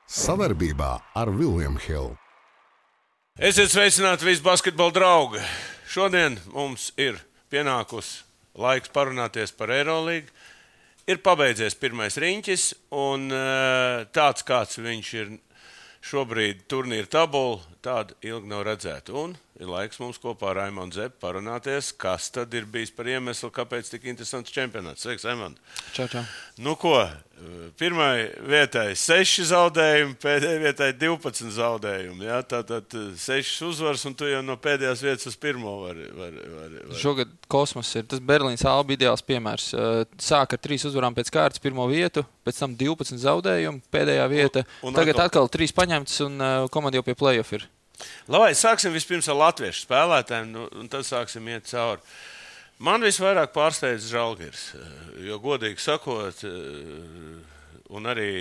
Sadarbībā ar William Hill. Esiet sveicināti visi basketbola draugi. Šodien mums ir pienākusi laiks parunāties par Eirolīgu. Ir pabeidzies pirmais riņķis, un tāds, kāds viņš ir šobrīd turnīra tabula, tāda ilgi nav redzēta. Un ir laiks mums kopā ar Raimondu Zepu parunāties, kas tad ir bijis par iemeslu, kāpēc tik interesants čempionāts. Sveiks, Raimond! Čau. Nu ko, pirmai vietai 6 zaudējumi, pēdējai vietai 12 zaudējumi. Ja? Tātad 6 uzvaras, un tu jau no pēdējās vietas uz pirmo vari. Šogad kosmos ir. Tas Berlīnas Alba ideāls piemērs. Sāk ar 3 uzvarām pēc kārtas pirmo vietu, pēc tam 12 zaudējumi, pēdējā vieta. Tagad atkal 3 paņemts, un komanda jau pie play-off ir. Labi, sāksim vispirms ar latviešu spēlētājiem, un tad sāksim iet cauri. Man visvairāk pārsteidz Žalgiris, jo godīgi sakot, un arī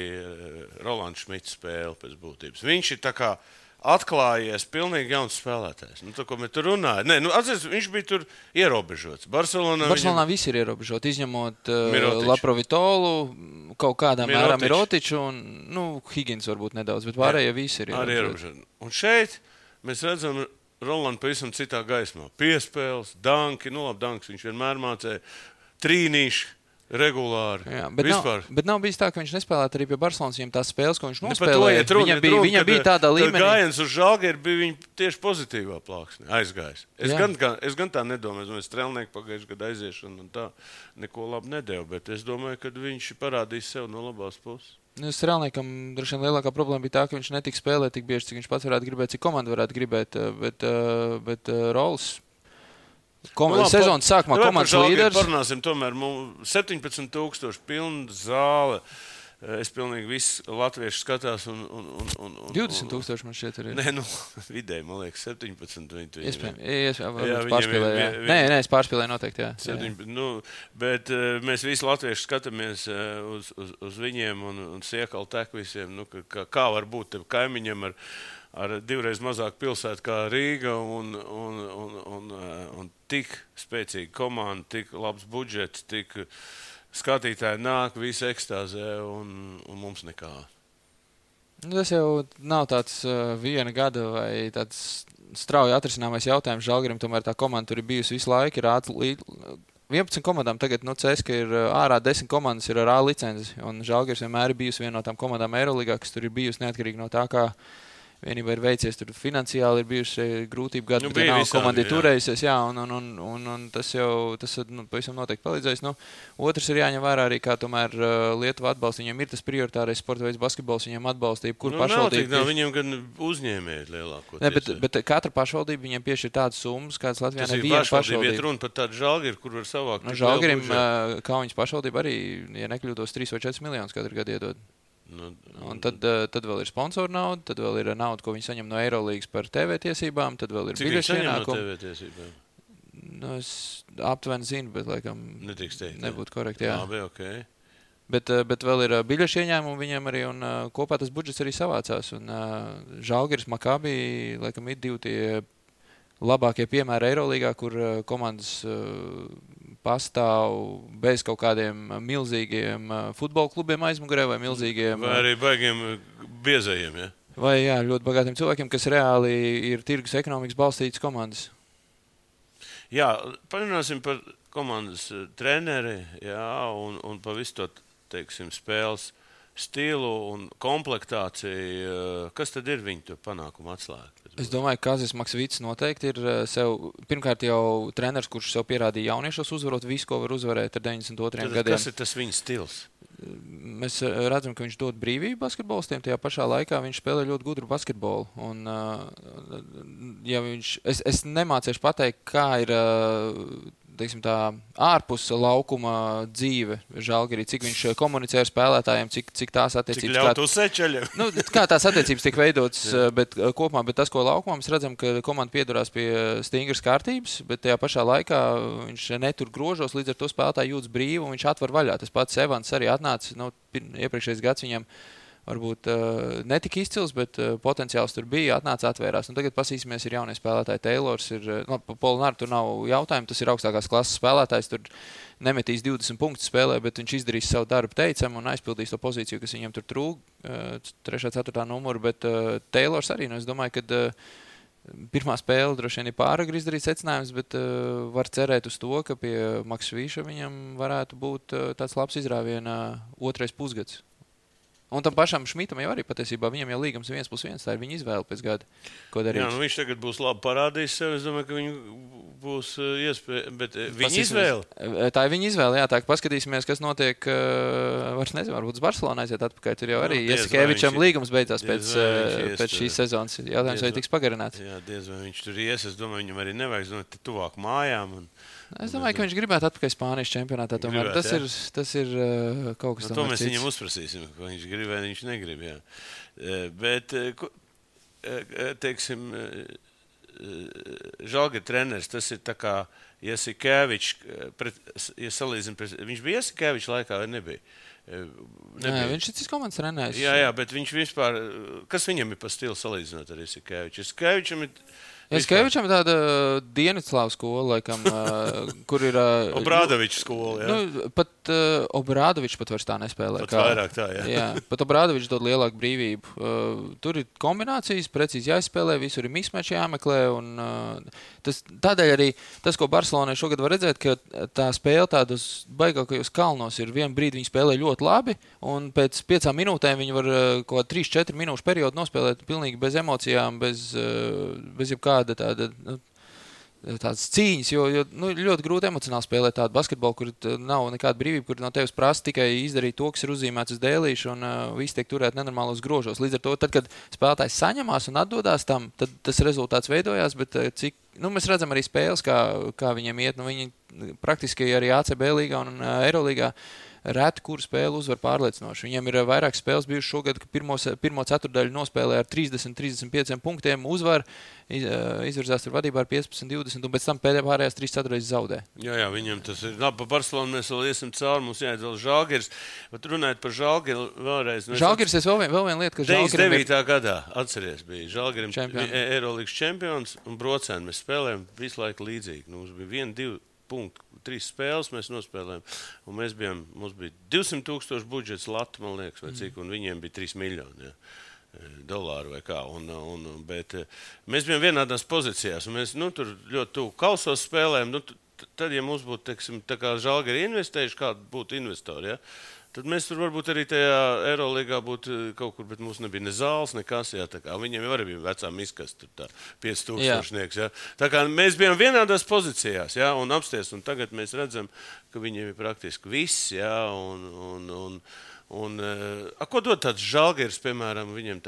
Rolands Šmits spēle pēc būtības. Viņš ir tā kā atklājies pilnīgi jauns spēlētājs. Nu, tā, ko mēs tur runājam. Nē, atceries, viņš bija tur ierobežots. Barcelonā visi ir ierobežoti, izņemot Laprovitolu, kaut kādā mērā Mirotiču un Higgins varbūt nedaudz, bet pārējie visi ir ierobežoti. Un šeit mēs redzam Rolandu pavisam citā gaismā. Piespēles, danki, danks viņš vienmēr mācēja, trīnīši. Regulāri. Jā, bet nav bijis tā, ka viņš nespēlētu arī pie Barcelonas, viņam tās spēles, ko viņš nospēlēja. Viņam bija tādā līmenī. Gājiens uz Žalgiru bija viņa tieši pozitīvā plāksnē aizgājis. Es gan tā nedomāju, es Strelnieku pagājušajā gadā aiziešanu un tā neko labi nedevu, bet es domāju, ka viņš parādīs sev no labās puses. Strelniekam droši vien lielākā problēma bija tā, ka viņš netika spēlēt tik bieži, cik viņš pats varētu gribēt, cik komanda varētu gribēt, bet Rols sezonas sākumā komandas līderis. Parunāsim tomēr 17,000 pilna zāle. Es pilnīgi visu latviešu skatās un 20,000 man šķiet arī. Nē, vidēji, man liekas, 17. Iespējams, pārspīlēju. Nē, es pārspīlēju noteikti, jā. Bet mēs visi latvieši skatāmies uz viņiem un Siekalu tek visiem, kā var būt tev kaimiņam ar 2 reiz mazāk pilsētu kā Rīga un tik spēcīga komanda, tik labs budžets, tik skatītāji nāk, visi ekstāzē un mums nekā. Tas jau nav tāds viena gada vai tāds strauji atrisināmais jautājums Žalgirim, tomēr tā komanda tur ir bijusi visu laiku, ir 11 komandām tagad, CSKA ir ārā 10 komandas ir ar A licenci, un Žalgiris vienmēr ir bijusi viena no tām komandām Eirolīgā, kas tur ir bijusi neatkarīgi no tā, kā vienībā ir veicies, tur finansiāli ir bijuši grūtību gadu, bet nav komanda ir turējusies, un tas pavisam noteikti palīdzēs. Otrs ir jāņem vērā arī, kā tomēr Lietuva atbalsta, viņiem ir tas prioritārais sporta veids basketbols, viņiem atbalsta jebkur pašvaldība. Viņiem gan uzņēmēji lielākoties. Bet katra pašvaldība viņiem piešķir tādas summas, kādas Latvijā neviena pašvaldība. Ir runa par tādu Žalgiru, kur var savākt. Žalgirim, Kauņas pašvaldība arī, ja nekļūtos, 3 vai 4 miljonus katru gadu iedod. Un tad vēl ir sponsoru nauda, tad vēl ir nauda, ko viņi saņem no Eirolīgas par TV tiesībām, tad vēl ir biļešu ienākumu. Cik viņi saņem no TV tiesībām? Es aptuveni zinu, bet laikam nebūtu korekti. Labi, okay. Bet vēl ir biļešu ieņēmumi viņiem arī, un kopā tas budžets arī savācās. Un Žalgiris, Makabi, laikam ir 2 tie labākie piemēri Eirolīgā, kur komandas pastāv bez kaut kādiem milzīgiem futbola klubiem aizmugurē vai milzīgiem... Vai arī baigiem biezajiem, ja? Vai, jā, ļoti bagātiem cilvēkiem, kas reāli ir tirgus ekonomikas balstītas komandas. Jā, parunāsim par komandas treneri, jā, un pa visu to, teiksim, spēles stilu un komplektāciju. Kas tad ir viņu panākumu atslēga? Es domāju, ka Kazis Maksvits noteikti ir sev, pirmkārt jau treneris, kurš sev pierādīja jauniešos uzvarot visu, ko var uzvarēt ar 92 gadiem. Kas ir tas viņa stils? Mēs redzam, ka viņš dod brīvību basketbolistiem, tajā pašā laikā viņš spēlē ļoti gudru basketbolu. Un, ja es nemācīšu pateikt, kā ir teiksim tā, ārpus laukuma dzīve Žalgirī, cik viņš komunicē ar spēlētājiem, cik tās attiecības... Cik ļaut uz sečaļiem. Kā tās attiecības tiek veidotas, bet kopumā, bet tas, ko laukumā mēs redzam, ka komanda piedurās pie stingras kārtības, bet tajā pašā laikā viņš netur grožos, līdz ar to spēlētāji jūtas brīvi un viņš atver vaļā. Tas pats Evans arī atnāca, iepriekšējais gads viņam varbūt netika izcils, bet potenciāls tur bija, atnāca atvērās. Tagad pasīsimies, ir jaunie spēlētāji. Taylors ir, Polināri tur nav jautājumu, tas ir augstākās klases spēlētājs, tur nemetīs 20 punktus spēlē, bet viņš izdarīs savu darbu teicam un aizpildīs to pozīciju, kas viņam tur trūk, 3. 4. numuru, bet Taylors arī, es domāju, ka pirmā spēle droši vien ir pāragri izdarīt secinājums, bet var cerēt uz to, ka pie Maksa Vīša viņam varētu būt tāds labs izrāviena otrais pusgads. Un tam pašam Šmitam jau arī patiesībā viņam jau līgums 1+1, tā ir viņa izvēle pēc gada, ko darīt. Jā, viņš tagad būs labi parādījis sev, es domāju, ka viņu būs iespēja, bet viņa izvēle? Tā ir viņa izvēle, jā, tā, ka paskatīsimies, kas notiek, vairs nezinu, varbūt uz Barcelonu aiziet atpakaļ, tur jau arī Jasikevičam līgums beidzās pēc šīs sezonas, jautājums vai tiks pagarināts. Jā, diez vai viņš tur ies, es domāju, viņam arī nevajag, zināt, tuvāk mājām. Es domāju, ka viņš gribētu atpakaļ Spānijas čempionātā. Tomēr tas ir kaut kas tāds. To mēs viņam uzprasīsim, ko viņš grib vai viņš negrib. Jā. Bet, teiksim, Žalgiris treneris, tas ir tā kā Jasikevičs, ja salīdzina, viņš bija Jasikevičs laikā vai nebija? Nē, viņš ir cits komandas trenējis. Jā, bet viņš vispār, kas viņam ir pa stilu salīdzinot ar Jasikeviču? Jasikevičam ir Jasikevičam tāda Dienvidslāvu skola, laikam, kur ir... Obrādovičs skola, jā. Pat Obrādovičs pat vairs tā nespēlē. Pat vairāk tā, jā. Jā, pat Obrādovičs dod lielāku brīvību. Tur ir kombinācijas, precīzi jāizspēlē, visur ir mismeči jāmeklē, un tādēļ arī tas, ko Barcelonai šogad var redzēt, ka tā spēle tādos baigākajos kalnos ir vienu brīdi viņi spēlē ļoti labi, un pēc 5 minūtēm viņi var kaut 3-4 minūšu periodu nospēlēt pilnīgi bez emocijām, bez jebkāda tādas cīņas, jo ļoti grūti emocionāli spēlēt tādu basketbolu, kur nav nekāda brīvība, kur no tevis prasa tikai izdarīt to, kas ir uzzīmēts uz dēlīšu, un viss tiek turēt nenormālos grožos. Līdz ar to, tad, kad spēlētājs saņemās un atdodās tam, tad tas rezultāts veidojās, bet mēs redzam arī spēles, kā viņiem iet. Viņi praktiski arī ACB līgā un Eirolīgā reti, kur spēle uzvar pārliecinoši. Viņam ir vairāk spēles bijušas šogad, ka pirmo ceturdaļu nospēlē ar 30-35 punktiem uzvar, izvirzās tur vadībā ar 15-20, un pēc tam pārējās 3 ceturdaļas zaudē. Jā, viņam tas ir. Labi, par Barcelonu mēs vēl iesim cauri, mums jāiet vēl Žalgiris. Bet runājot par Žalgiri vēlreiz. Žalgiris es vēl viena lieta, ka Žalgirim 99. gadā, atceries, bija Žalgirim Eirolīgas čempions, un Brocēni mēs spēlējam visu laiku līdzīgi. Mums bija 1-2 punkti. 3 spēles mēs nospēlējām, un mums bija 200,000 budžets latu, man liekas, vai cik, un viņiem bija 3 miljoni dolāru vai kā. Bet mēs bijām vienādās pozīcijās, un mēs tur ļoti tuvu kausos spēlējām. Tad, ja mums būtu, teiksim, tā kā Žalgiri investējuši, kādu būtu investori, ja? Tad mēs tur varbūt arī tajā Eirolīgā būtu kaut kur, bet mums nebija ne zāles, nekas, jā, tā kā viņiem jau arī bija vecā miskas, tur tā 5,000, jā. Tā kā mēs bijām vienādās pozīcijās, jā, un apsties, un tagad mēs redzam, ka viņiem ir praktiski viss, jā, ko dod tāds Žalgiris, piemēram, viņiem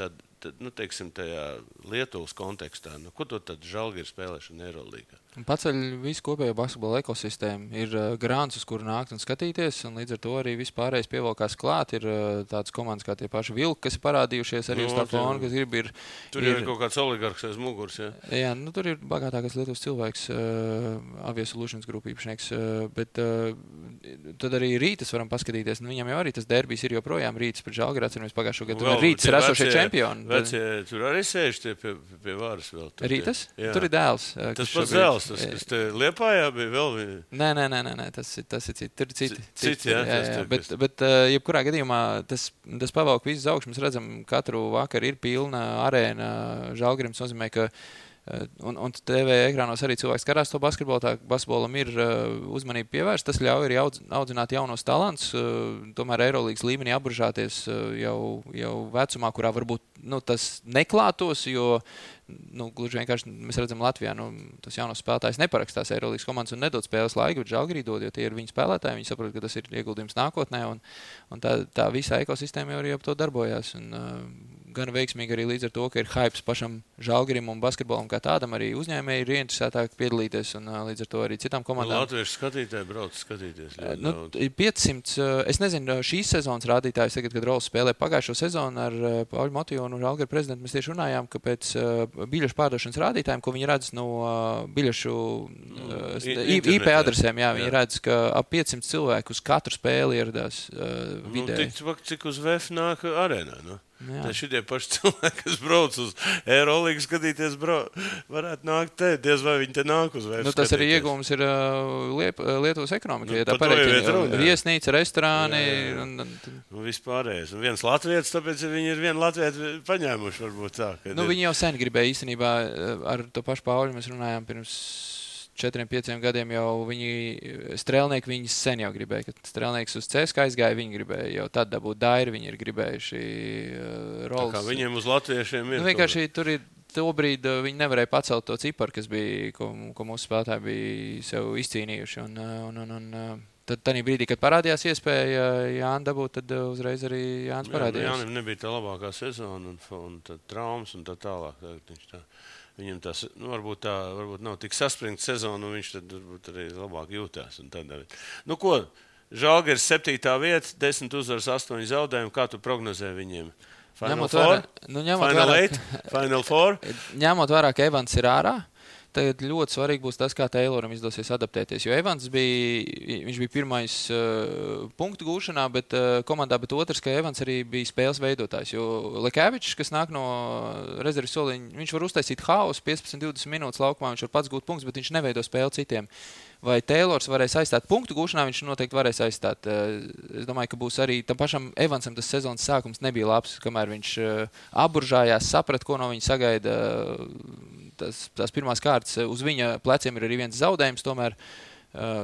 teiksim, tajā Lietuvas kontekstā, ko dod tāds Žalgiris spēlēšana Eirolīgā? Paceļ visu kopējo basketbola ekosistēmu. Ir grāns, uz kuru nākt un skatīties, un līdz ar to arī vispārējais pievalkās klāt. Ir tādas komandas kā tie paši Vilki, kas ir parādījušies arī uz tā fona, kas grib. Tur ir kaut kāds oligarks aiz muguras, jā? Jā, tur ir bagātākais Lietuvas cilvēks, Aviasolutions grupu īpašnieks, bet tad arī Rītas varam paskatīties. Viņam jau arī tas derbijs ir joprojām Rītas pret Žalgiri, atceramies pagājušo gadu. Rītas ir esošie čempioni. Tur arī sēž tie pie varas vēl. Rītas? Tur ir dēls. Tas pats dēls. Tas te Liepājā bija vēl viena? Nē, tas ir citi. Tur ir citi. Jā. Bet jebkurā gadījumā tas pavalk visu uz augšu. Mēs redzam, katru vakaru ir pilna arēna Žalgirim. Tas nozīmē, ka un TV ekrānos arī cilvēks karās to basketbolu. Tā basketbolam ir uzmanība pievērsta. Tas ļauj arī audzināt jaunos talantus. Tomēr Eirolīgas līmenī apburžāties jau vecumā, kurā varbūt tas neklātos, jo gluži vienkārši mēs redzam Latvijā, tas jaunos spēlētājs neparakstās Eirolīgas komandas un nedod spēles laiku, bet Žalgirī dod, jo tie ir viņi spēlētāji, viņi saprot, ka tas ir ieguldījums nākotnē, un tā visā ekosistēma jau arī ap to darbojās. Gan veiksmīgi arī līdz ar to, ka ir hypes pašam Žalgirim un basketbolam kā tādam, arī uzņēmēji ir ieinteresētāki piedalīties, un līdz ar to arī citām komandām. Latviešu skatītāji brauc skatīties. 500, es nezinu, šīs sezonas rādītājs tagad, kad Rols spēlē pagājušo sezonu ar Pauļu Motiju un Žalgiri prezidentu, mēs tieši runājām, ka pēc biļešu pārdošanas rādītājiem, ko viņi redz no biļešu IP adresēm, jā, viņi redz, ka ap 500 cilvēku uz katru spēli ieradās vidēji. Cik uz VF nāk arēnā, Tad šitie paši cilvēki, kas brauc uz Eirolīgu skatīties, varētu nākt te, diez vai viņi te nāk uz vērts. Tas arī iegūms ir Lietuvas ekonomika. Ja tā par to jau pareiķina, iet runa. Viesnīca, restorāni. Un vispārējais. Un viens latvietis, tāpēc viņi ir vienu latvieti paņēmuši varbūt tā. Viņi jau sen gribēja īstenībā ar to pašu Pauļu. Mēs runājām pirms 4-5 gadiem jau strēlnieki viņas sen jau gribēja. Kad strēlnieks uz CSKA aizgāja, viņi gribēja jau tad dabūt Dairi, viņi ir gribējuši roles. Tā kā viņiem uz latviešiem ir. Vienkārši tur ir tobrīd viņi nevarēja pacelt to ciparu, kas bija, ko mūsu spēlētāji bija sev izcīnījuši. Un tad tādā brīdī, kad parādījās iespēja Jāni dabūt, tad uzreiz arī Jānis parādījās. Jānim nebija tā labākā sezona un tad traumas un tā tālāk. Viņam tas varbūt nav tik saspringta sezona, un viņš tad varbūt arī labāk jūtās. Ko, Žalgiris 7. vieta, 10 uzvaras, 8 zaudējumi. Kā tu prognozē viņiem? Final Four? Final Four? Ņemot vērā, ka Evans ir ārā, tagad ļoti svarīgi būs tas, kā Tayloram izdosies adaptēties. Jo Evans viņš bija pirmais punktu gūšanā, bet komandā, bet otrs, ka Evans arī bija spēles veidotājs. Jo Lekēvičs, kas nāk no rezerves soliņa, viņš var uztaisīt haosu 15-20 minūtes laukumā, viņš var pats gūt punktus, bet viņš neveido spēli citiem. Vai Taylors varēs aizstāt punktu gūšanā, viņš noteikti varēs aizstāt. Es domāju, ka būs arī tam pašam Evansam tas sezonas sākums nebija labs, kamēr viņš aburžājās, saprat, ko no viņa sagaida. Tās pirmās kārtas uz viņa pleciem ir arī viens zaudējums tomēr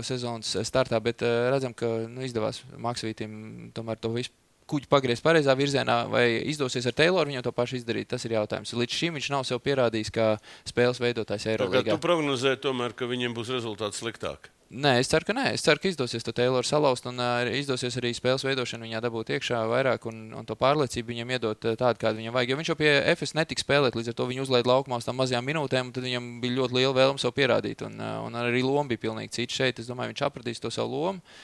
sezonas startā, bet redzam, ka izdevās Maksvītim tomēr to visu kuģi pagriezt pareizā virzienā, vai izdosies ar Tayloru viņam to pašu izdarīt, tas ir jautājums. Līdz šim viņš nav sev pierādījis kā spēles veidotājs Eirolīgā. Tu prognozē tomēr, ka viņiem būs rezultāts sliktāk? Nē, es ceru, ka nē. Es ceru, ka izdosies to Tayloru salauzt un izdosies arī spēles veidošanu viņā dabūt iekšā vairāk un to pārliecību viņam iedot tādu, kādu viņam vajag. Jo viņš jau pie FS netika spēlēt, līdz ar to viņu uzlaid laukumā uz tām mazajām minūtēm, un tad viņam bija ļoti liela vēlme sev pierādīt. Un arī loma bija pilnīgi cita šeit. Es domāju, viņš apradīs to savu lomu.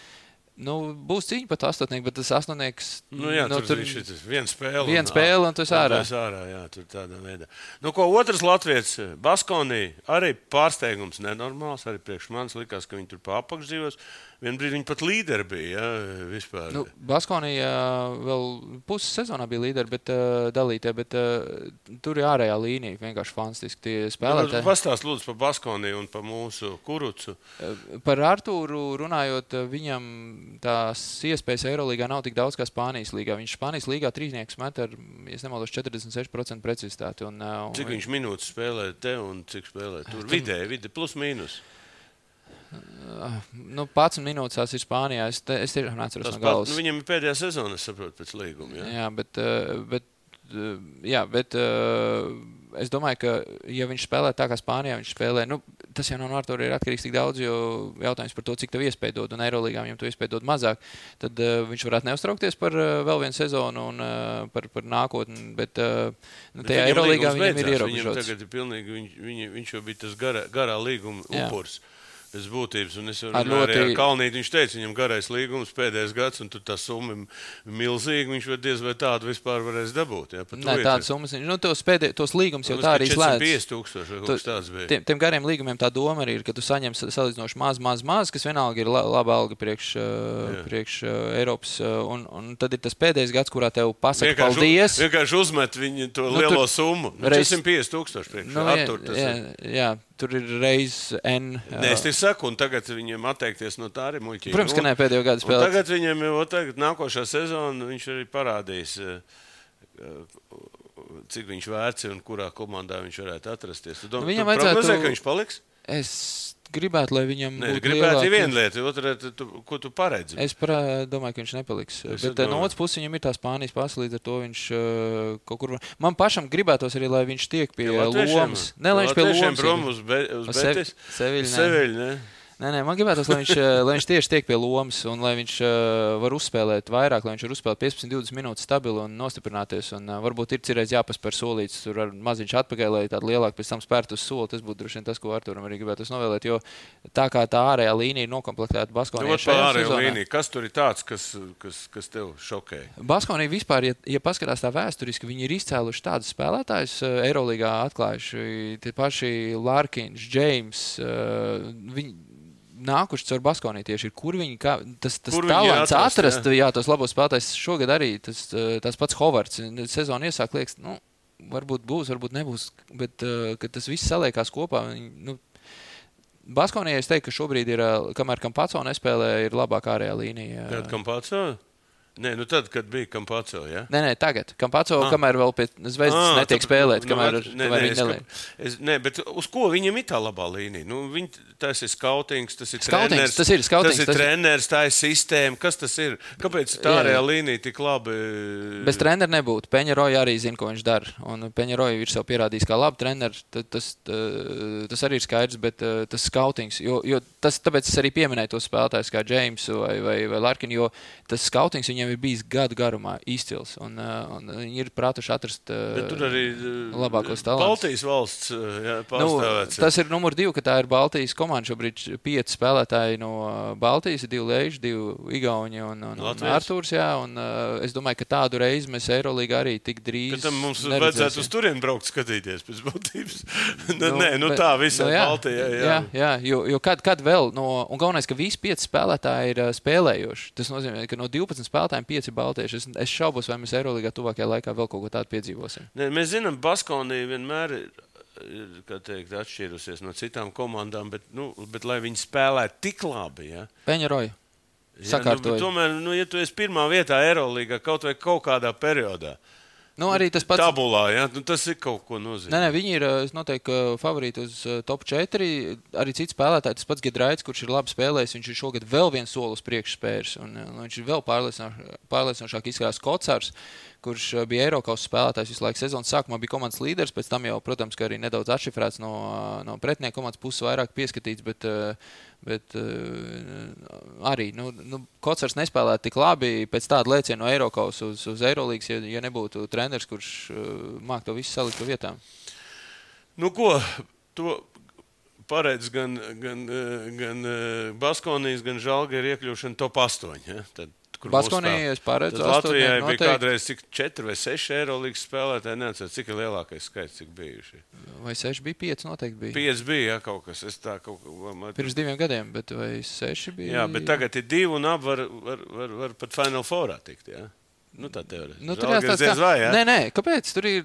Būs cīņa pat astotnieks, bet tas astotnieks... tur viņš ir viena spēle. Viena spēle un tu esi ārā. Tur tādā veidā. Otrs latvietis, Baskonī, arī pārsteigums nenormāls, arī priekš manis likās, ka viņi tur pa apakšdzīvos. Vien brīdi viņi pat līderi bija, vispār. Baskonī vēl puses sezonā bija līderi, bet dalītie, bet tur ir ārējā līnija, vienkārši fantastiski tie spēlētāji. Pastāst lūdzu par Baskonī un par mūsu Kurucu. Par Artūru runājot, viņam tās iespējas Eirolīgā nav tik daudz kā Spānijas līgā. Viņš Spānijas līgā trīsnieks met ar, ja nemaldos, 46% precizitāti. Cik viņš minūtes spēlē te un cik spēlē tur? Vidē, plus mīnus. 11 minūtes tās ir Spānijā. Es tiešām neatceros no galvas. Viņam ir pēdējā sezona, es saprotu, pēc līguma. Jā, bet es domāju, ka ja viņš spēlē tā kā Spānijā, viņš spēlē, tas jau no Artūra ir atkarīgs tik daudz, jo jautājums par to, cik tev iespēja dod, un Eirolīgā viņam to iespēja dod mazāk, tad viņš varētu neuztraukties par vēl vienu sezonu un par nākotni, bet tajā Eirolīgā viņam ir ierobežots. Viņam tagad ir pilnīgi, viņš jau bija tas garā līguma upurs. Pēc būtības, un es runāju arī ar Kalnīti, viņš teica, viņam garais līgums pēdējais gads, un tur tā summa milzīga, viņš diez vai tādu vispār varēs dabūt. Jā, nē, tādas summas, tos līgums jau tā arī slēdz. 450,000 tāds bija. Tiem gariem līgumiem tā doma arī ir, ka tu saņem salīdzinoši maz, kas vienalga ir laba alga priekš Eiropas, un tad ir tas pēdējais gads, kurā tev pasaka paldies. Vienkārši uzmet viņu to lielo summu. 450,000 priekš Artur. Jā. Tur ir reiz N. Nē, es te saku, un tagad viņiem atteikties no tā arī muļķīgi. Protams, ka ne pēdējo gadu spēlēt. Tagad viņiem jau nākošā sezona viņš arī parādīs, cik viņš vērts un kurā komandā viņš varētu atrasties. Tu prognozē, ka viņš paliks? Es gribētu, lai viņam būtu gribētu viena lieta, otra, ko tu paredzi? Es domāju, ka viņš nepaliks. Bet no otras puses viņam ir tā Spānijas pasa, līdz ar to viņš kaut kur... Man pašam gribētos arī, lai viņš tiek pie lomas. Ne, lai viņš pie lomas. Prom uz Betis? Seviļu, ne? Nē, man gribētos, lai viņš tieši tiek pie lomas un lai viņš var uzspēlēt vairāk, lai viņš var uzspēlēt 15-20 minūtes stabili un nostiprināties. Un varbūt ir cirreiz jāpaspēr solīts, tur ar maziņš atpakaļ, lai tādu lielāku pēc tam spērt uz soli. Tas būtu droši vien tas, ko Artūram arī gribētos novēlēt, jo tā kā tā ārējā līnija ir nokomplektēta Baskonijā šajā sezonā. Kas tur ir tāds, kas tev šokē? Baskonija vispār, ja paskatās tā vēsturiski, viņi ir izcēluši tādus spēlētājus Eirolīgā atklājuši. Tie paši Larkins, James, nākuši caur Baskonī tieši ir, kur viņi, tas Kur talants viņi atrast, tos labos spēlētājs šogad arī, tas pats Hovards, sezonu iesāk liekas, varbūt būs, varbūt nebūs, bet, kad tas viss saliekās kopā, Baskonī es teiktu, ka šobrīd ir, kamēr Campazzo nespēlē, ir labāk ārējā līnija. Kad Campazzo? Nē, tad, kad bija Campazzo, ja? Nē, tagad. Campazzo, kamēr vēl pie Zvezdas netiek spēlēt, kamēr viņi neliek. Nē, bet uz ko viņam ir tā labā līnija? Tas ir skautings, tas ir treneris. Tas ir treneris, tā ir sistēma. Kas tas ir? Kāpēc tā ārējā līnija tik labi? Bez trenera nebūtu. Peņaroja arī zina, ko viņš dara. Un Peņaroja ir sev pierādījis kā labi treneri. Tas arī ir skaidrs, bet tas skautings. Tāpēc es arī pieminēju tos spēlētājus kā Jamesu vai Larkinu, jo tas skautings viņiem ir bijis gadu garumā izcils. Un viņi ir prātuši atrast labākos talantus. Baltijas valsts pārstāvēts. Tas ir numur 2, ka tā ir Baltijas komanda. Šobrīd 5 spēlētāji no Baltijas, 2 Leiži, 2 Igauni un Artūrs. Jā, un es domāju, ka tādu reizi mēs Eirolīgā arī tik drīz tam mums vajadzētu uz turien braukt skatīties pēc būtības. Tā visā Baltijā. Jā, jo kad vēl, un galvenais, ka visi 5 spēlētāji ir spēlējoši. Tas nozīmē, ka no 12 spēlētājiem 5 ir baltieši. Es šaubos, vai mēs Eirolīgā tuvākajā laikā vēl kaut ko tādu piedzīvosim. Mēs zinām, Baskonī vienmēr ir atšķīrusies no citām komandām, bet lai viņi spēlētu tik labi, ja? Peņaroja sakārtoja. Tomēr, ja tu esi pirmā vietā Eirolīgā kaut kādā periodā, arī tas pats tabulā, ja? Tas ir kaut ko nozīmē. Nē, viņi ir, es noteikti, favorīti uz top 4. Arī cits spēlētāji, tas pats Gedraits, kurš ir labi spēlējis, viņš ir šogad vēl viens soli uz priekšu spērs, un viņš ir vēl pārliecinošāk izskatās Kocārs, kurš bija Eirokausas spēlētājs visu laiku sezonas sākumā, bija komandas līderis, pēc tam jau, protams, ka arī nedaudz atšifrēts no pretinieka komandas puses vairāk pieskatīts, bet arī, Kocārs nespēlētu tik labi pēc tāda lēciena no Eirokausas uz Eirolīgas, ja nebūtu treneris, kurš māk to visu salikt pa vietām. To paredz gan Baskonijas, gan Žalgiris iekļūšana top 8, ja? Baskonija, es paredzu. Latvijai bija kādreiz 4 vai 6 Eirolīgas spēlētāji, neatceros, cik ir lielākais skaits, cik bijuši. Vai 6 bija, 5 noteikti bija. 5 bija, kaut kas. Pirms 2 gadiem, bet vai 6 bija? Jā, bet tagad ir 2 un var pat Final Fourā tikt, jā. Tā teorētiski. Žalgiris diez vai, jā? Nē, kāpēc? Tur ir,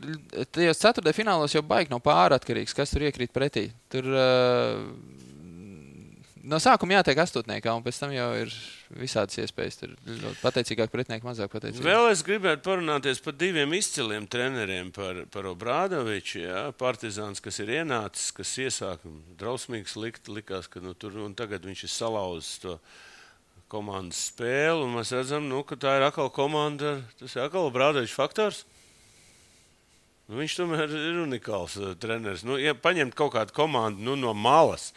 tajos 4. finālos jau baigi nav pāratkarīgs, kas tur iekrīt pretī. Tur no sākuma jātiek astotniekā, un pēc tam jau ir visādas iespējas. Tur pateicīgāk pretinieki, mazāk pateicīgi. Vēl es gribētu parunāties par 2 izciliem treneriem, par Obradoviču, jā, Partizāns, kas ir ienācis, kas iesāk drausmīgs likās, ka tur, un tagad viņš ir salauzis to komandas spēli, un mēs redzam, ka tā ir atkal komanda, tas ir atkal Obradoviča faktors. Viņš tomēr ir unikāls treneris. Ja paņemt kaut kādu komandu no malas,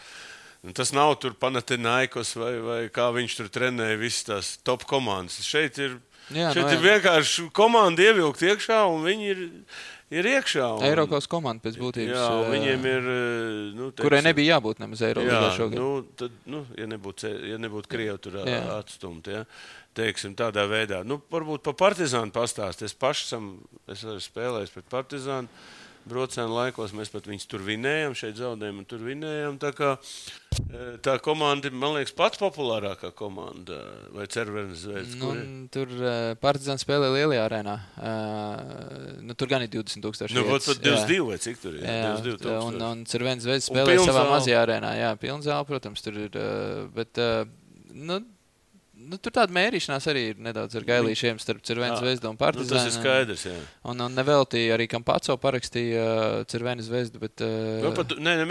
tas nav tur Panathinaikos vai kā viņš tur trenēja visas tās top komandas. Šeit ir vienkārši komanda ievilkt iekšā, un viņi ir iekšā. Eirokausas komanda pēc būtības. Jā, viņiem ir... kurai nebija jābūt nemaz Eirolīgā šogad. Tad, ja nebūtu Krievi tur atstumt, ja, teiksim, tādā veidā. Varbūt pa Partizānu pastāst. Es arī spēlējis pret Partizānu. Brocēnu laikos mēs pat viņus tur vinējam, šeit zaudējam un tur vinējam. Tā komanda, man liekas, pats populārākā komanda, vai Cervenes Zvezda? Tur Partizāns spēlē lielajā arēnā. Tur gan ir 20,000 vietas. Pat 22 vai cik tur ir? Jā, 22,000. Un Cervenes Zvezda spēlē savā mazajā arēnā. Jā, pilnzāle, protams, tur ir. Bet, tur tāda mērīšanās arī ir nedaudz ar gailīšiem starp Cervenes Zvezdu un Partizānu. Tas ir skaidrs, jā. Un nevelti arī Campazzo parakstīja Cervenes Zvezdu, bet...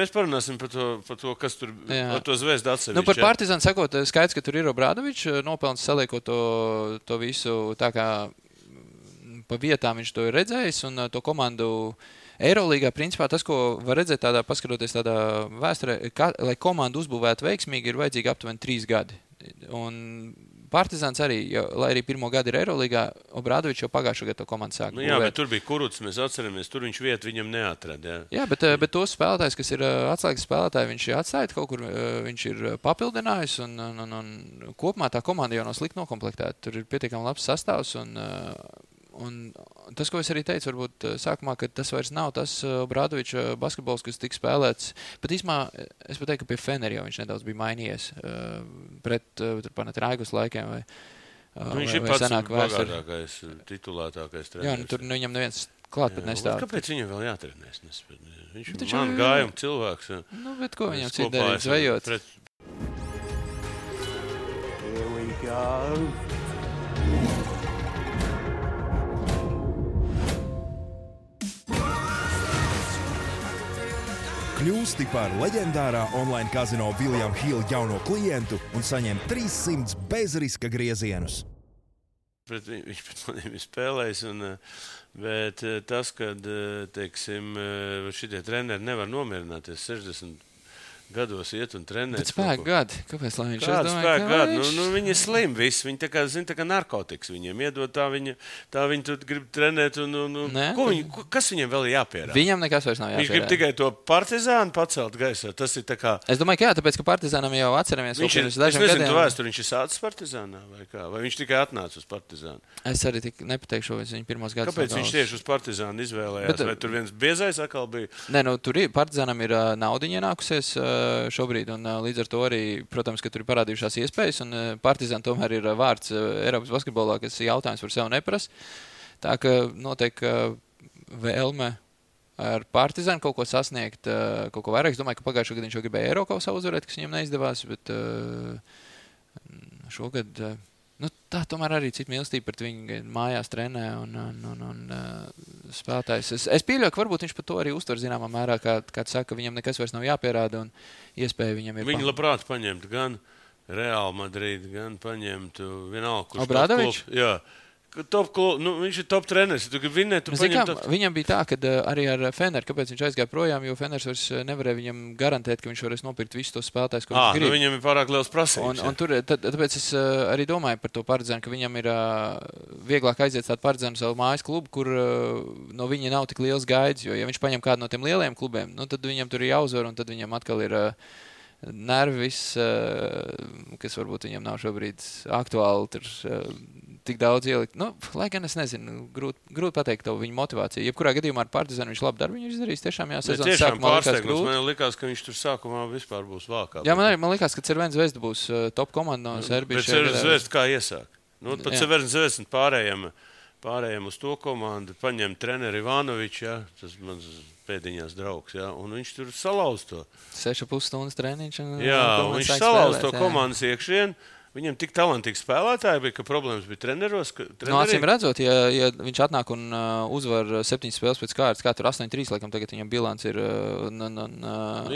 mēs parunāsim par to, kas tur ar to Zvezdu atsevišķi. Par Partizānu sakot, skaidrs, ka tur ir Obradovičs, nopelns saliekot to visu tā kā pa vietām viņš to ir redzējis, un to komandu... Eirolīgā, principā, tas, ko var redzēt paskatoties tādā vēsturē, lai komandu uzbūvētu veiksmīgi, ir vajadzīgi aptuveni 3 gadi. Un Partizāns arī, lai arī pirmo gadu ir Eirolīgā, Obradovičs jau pagājušo gadu to komandu sāk būvēt. Jā, bet tur bija Kuruts, mēs atceramies, tur viņš vietu viņam neatrada. Jā, bet tos spēlētājs, kas ir atslēgas spēlētāji, viņš ir atstājis kaut kur, viņš ir papildinājis, un kopumā tā komanda jau nav slikti nokomplektēta. Tur ir pietiekami labs sastāvs, Un tas, ko es arī teicu, varbūt sākumā, ka tas vairs nav tas Obradoviča basketbols, kas tika spēlēts. Pat īsumā, es pat teiktu, ka pie Fenera jau viņš nedaudz bija mainījies pret Panathinaikos laikiem. Viņš ir pats bagātākais, titulētākais treneris. Jā, tur viņam neviens klāt pat nestāv. Kāpēc viņam vēl jātrenēs? Viņš man gājuma cilvēks. Nu, bet ko viņam citu darīt, zvejot? Here we go. Kļūsti par leģendārā online kazino William Hill jauno klientu un saņem 300 bezriska griezienus. Viņš pret maniem ir spēlējis, bet tas, kad, teiksim, šitie treneri nevar nomierināties 60 gados iet un trenēt. Bet spēku gadi. Kāpēc, lai viņš Kāda spēku gadi? Viņi ir slimi visi. Viņi tā kā narkotikas viņiem iedod, tā viņi tur grib trenēt. Kas viņiem vēl ir jāpierāda? Viņam nekas vairs nav jāpierāda. Viņš grib tikai to Partizānu pacelt gaisā. Tas ir tā kā... Es domāju, ka jā, tāpēc, ka Partizānam jau atceramies. Es nezinu, tu vēsturi, viņš ir sācis Partizānā vai kā? Vai viņš tikai atnāca uz Partizānu? Es arī nepateikšu, vai viņš pirmos gadus. Kāpēc viņš tieši uz Partizānu izvēlējās? Vai tur viens biezais atkal bija? Nē, tur Partizānam ir naudiņa ienākusies šobrīd, un līdz ar to arī, protams, ka tur ir parādījušās iespējas, un Partizan tomēr ir vārds Eiropas basketbolā, kas jautājums par sevi neprasa. Tā ka notiek vēlme ar Partizanu kaut ko sasniegt, kaut ko vairāk. Es domāju, ka pagājušo gadu viņš jau gribēja Eirokausā uzvarēt, kas viņam neizdevās, bet šogad... tā tomēr arī cita mīlestība pret viņu mājās trenē un spēlētājs. Es pieļauju, ka varbūt viņš par to arī uztver zināmā mērā, kā saka, ka viņam nekas vairs nav jāpierāda un iespēja viņam ir. Viņi labprāt paņemtu gan Real Madrid, gan paņemtu vienalga, kurš Obradovičs? Jā. Viņš ir top treneris. Tu gribi vinēt, tu paņem top... Viņam bija tā, ka arī ar Feneru, kāpēc viņš aizgāja projām, jo Feners vairs nevarēja viņam garantēt, ka viņš varēs nopirkt visus tos spēlētājus, ko viņš grib. Viņam ir pārāk liels prasības. Un tur, tāpēc es arī domāju par to Partizanu, ka viņam ir vieglāk aiziet tādu Partizanu savu mājas klubu, kur no viņa nav tik liels gaids, jo ja viņš paņem kādu no tiem lielajiem klubiem, tad viņam tur ir jāuzvar, un tad viņam atkal ir nervi viss, kas varbūt viņam nav šobrīd aktuāli, tur tik daudz ielikt. Lai gan es nezinu, grūti pateikt to viņa motivāciju. Jebkurā gadījumā ar Partizanu viņš labu darbu viņš izdarīs. Tiešām sezonas sākumā likās grūti. Man likās, ka viņš tur sākumā vispār būs vākā. Jā, man likās, ka Cervena Zvezda būs top komanda no Serbijas. Bet Cervena Zvezda kā iesāk? Pat Cervena Zvezda pārējiem uz to komandu paņem treneri Ivanovičs, ja, tas mans pēdiņās draugs, ja, un viņš tur salauz to. 6,5 stundas treniņš. Jā, un viņš salauz to komandas iekšien. Viņam tik talantīgi spēlētāji bija, ka problēmas bija treneros. Acīm redzot, ja viņš atnāk un uzvar 7 spēles pēc kārtas, kā tur 8-3, laikam tagad viņam bilants ir...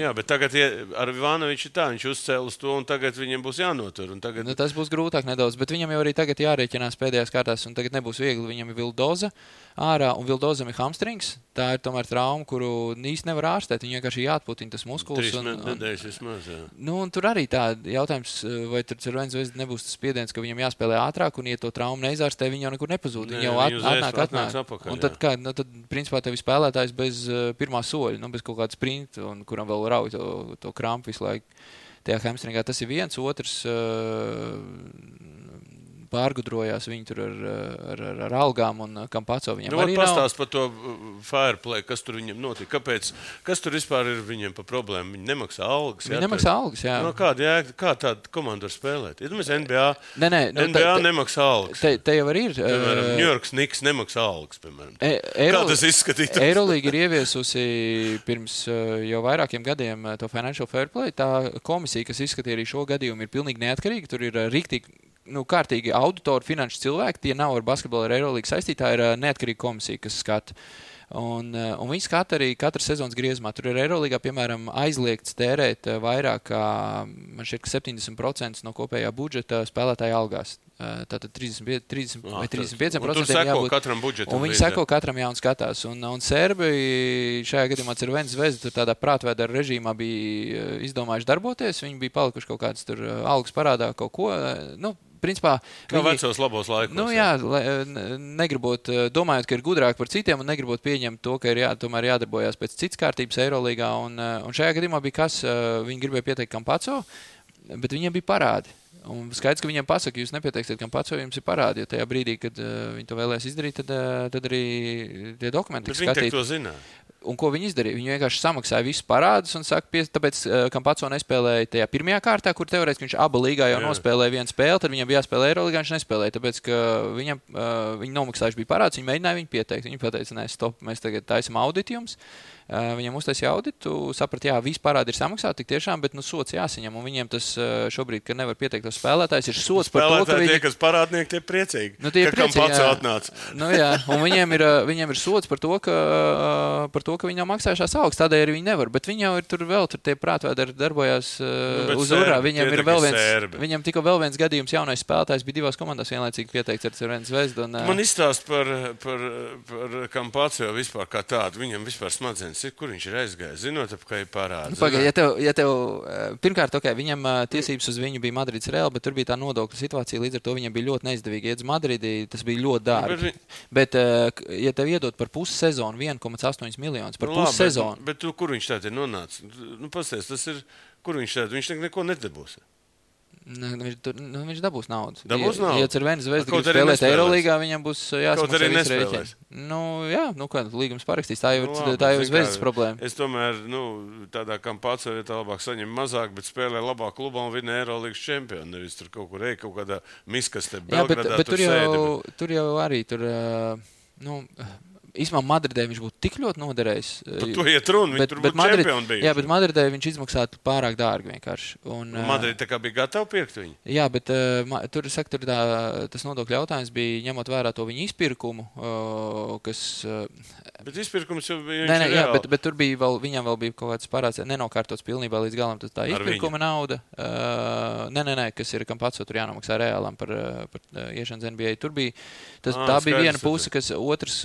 Jā, bet tagad ar Ivanoviču tā, viņš uzcēl uz to, un tagad viņam būs jānotur. Tagad... Tas būs grūtāk nedaudz, bet viņam jau arī tagad jārēķinās pēdējās kārtās, un tagad nebūs viegli. Viņam ir Vildoza ārā, un Vildozam ir hamstrings. Tā ir tomēr trauma, kuru īsti nevar ārstēt. Viņam vienkārši jāatputina tas muskulis. 3 nedēļas vismaz, jā. Un tur arī tā jautājums, vai tur Cervena Zvezda nebūs tas spiediens, ka viņam jāspēlē ātrāk, un ja to traumu neizārstē, viņi jau nekur nepazūd. Viņi jau atnāk. Apakaļ, un tad, principā, tev ir spēlētājs bez pirmā soļa, bez kaut kāda sprinta, un kuram vēl rauj to krampu visu laiku. Tajā hamstringā tas ir viens, otrs pārgudrojās viņi tur ar algām un Kampaco viņam arī nav. Pastāst par to fireplay, kas tur viņam notika. Kas tur vispār ir viņiem par problēmu? Viņi nemaksā algas. Viņi nemaksā algas, jā. Kā tāda komanda var spēlēt? Iedomājies, NBA, NBA nemaksā algas. Te jau arī ir. Piemēram, New York Knicks nemaksā algas, piemēram. Kā tas izskatītos? Eurolīga ir ieviesusi pirms jau vairākiem gadiem to Financial Fairplay. Tā komisija, kas izskatīja arī šo gadījumu, ir pilnīgi neatkarīga. Tur ir riktīgi kārtīgi auditori, finanšu cilvēki, tie nav ar basketbolu ar Eirolīgu saistīti, tā ir neatkarīga komisija, kas skata. Un viņi skata arī katras sezonas griezumā. Tur ir Eirolīgā, piemēram, aizliegts tērēt vairāk kā, man šķiet, 70% no kopējā budžeta spēlētāja algās. Tātad 30 vai 35% ir jābūt katram budžetam. Un viņi seko katram un skatās. Un Serbi šajā gadījumā Cervena Zvezda tur tādā prātvēdara režīmā bija izdomājuši darboties. Viņi bija palikuši kaut kāds tur algas parādā kaut ko. Principā, kā vecos labos laikos. Negribot, domājot, ka ir gudrāk par citiem un negribot pieņemt to, ka ir tomēr jādarbojās pēc citas kārtības Eirolīgā. Un šajā gadījumā bija kas, viņi gribēja pieteikt Kampaco, bet viņiem bija parādi. Un skaidrs, ka viņiem pasaka, jūs nepieteiksiet, kam pats, jo jums ir parādi, jo tajā brīdī, kad viņi to vēlēs izdarīt, tad arī tie dokumenti tiks skatīti. Bet viņi to zināja. Un ko viņi izdarīja? Viņi vienkārši samaksāja visus parādus un saka, tāpēc, kam pats nespēlēja tajā pirmajā kārtā, kur teorētiski viņš aba līgā jau nospēlēja vienu spēli, tad viņam bija jāspēlē Eirolīgā, viņš nespēlēja, tāpēc, ka viņi nomaksājuši bija parādus, viņi mēģināja viņu pieteikt. Viņi pateica, nē, stop, mēs tagad taisam auditu jums. Viņam uztaisīja auditu, saprat, jā, visi parādi ir samaksāti tik tiešām, bet sots jāsaņem, un viņiem tas šobrīd, ka nevar pieteikt tos spēlētājus, ir sots par to, ka tie, kas parādnieki, tie priecīgi, ka kam pats atnāca. Jā, un viņiem ir sots par to, ka viņi nav maksājušās augstas, tādēļ arī viņi nevar, bet viņi jau ir tur vēl, tur tie prātvēdari darbojās uz urā, viņam tikko vēl viens gadījums jaunais spēlētājs bija divās komandās vienlaicīgi pieteikts ar Cervenes Zvezdu. Man izstāst par kam pats jau vispār kā tādu, viņam vispār smadzenes. Kur viņš ir aizgājis? Zinot, kā ir parāds. Ja tev pirmkārt, viņam tiesības uz viņu bija Madrids Real, bet tur bija tā nodokļu situācija, līdz ar to viņam bija ļoti neizdevīgi iet uz Madridi, tas bija ļoti dārgi. Bet, ja tev iedot par pussezonu 1,8 miljonus, par pussezonu. Bet kur viņš tātad ir nonācis? Pasties, tas ir, kur viņš tātad? Viņš neko nedabūs. Viņš dabūs naudu. Ja Cervenes Zvezda grib spēlēt Eirolīgā, viņam būs jāsmaksā visu rēķinu. Līgums parakstīs. Tā jau ir Zvezdas problēma. Es tomēr, tādā kam pats vietā labāk saņem mazāk, bet spēlē labāk klubā un vinē Eirolīgas čempionu. Nevis tur kaut kur kaut kādā miskastē Belgradā tur sēdi. Tur jau arī īstenībā Madridē viņš būtu tik ļoti noderējis. Par to iet runa, viņi tur būtu čempioni bijuši. Jā, bet Madridē viņš izmaksātu pārāk dārgi vienkārši. Madrid tā kā bija gatava pirkt viņu? Jā, bet tas nodokļu jautājums bija ņemot vērā to viņu izpirkumu, kas... Bet izpirkums jau bija viņš ir reāli. Bet tur bija viņam vēl bija kaut kāds parāds, nenokārtots pilnībā līdz galam, tas tā izpirkuma nauda. Nē, kas ir kam pats, tur jānomaksā reālam par iešanas NBA. Tur bija, tā bija viena puse, kas otrs...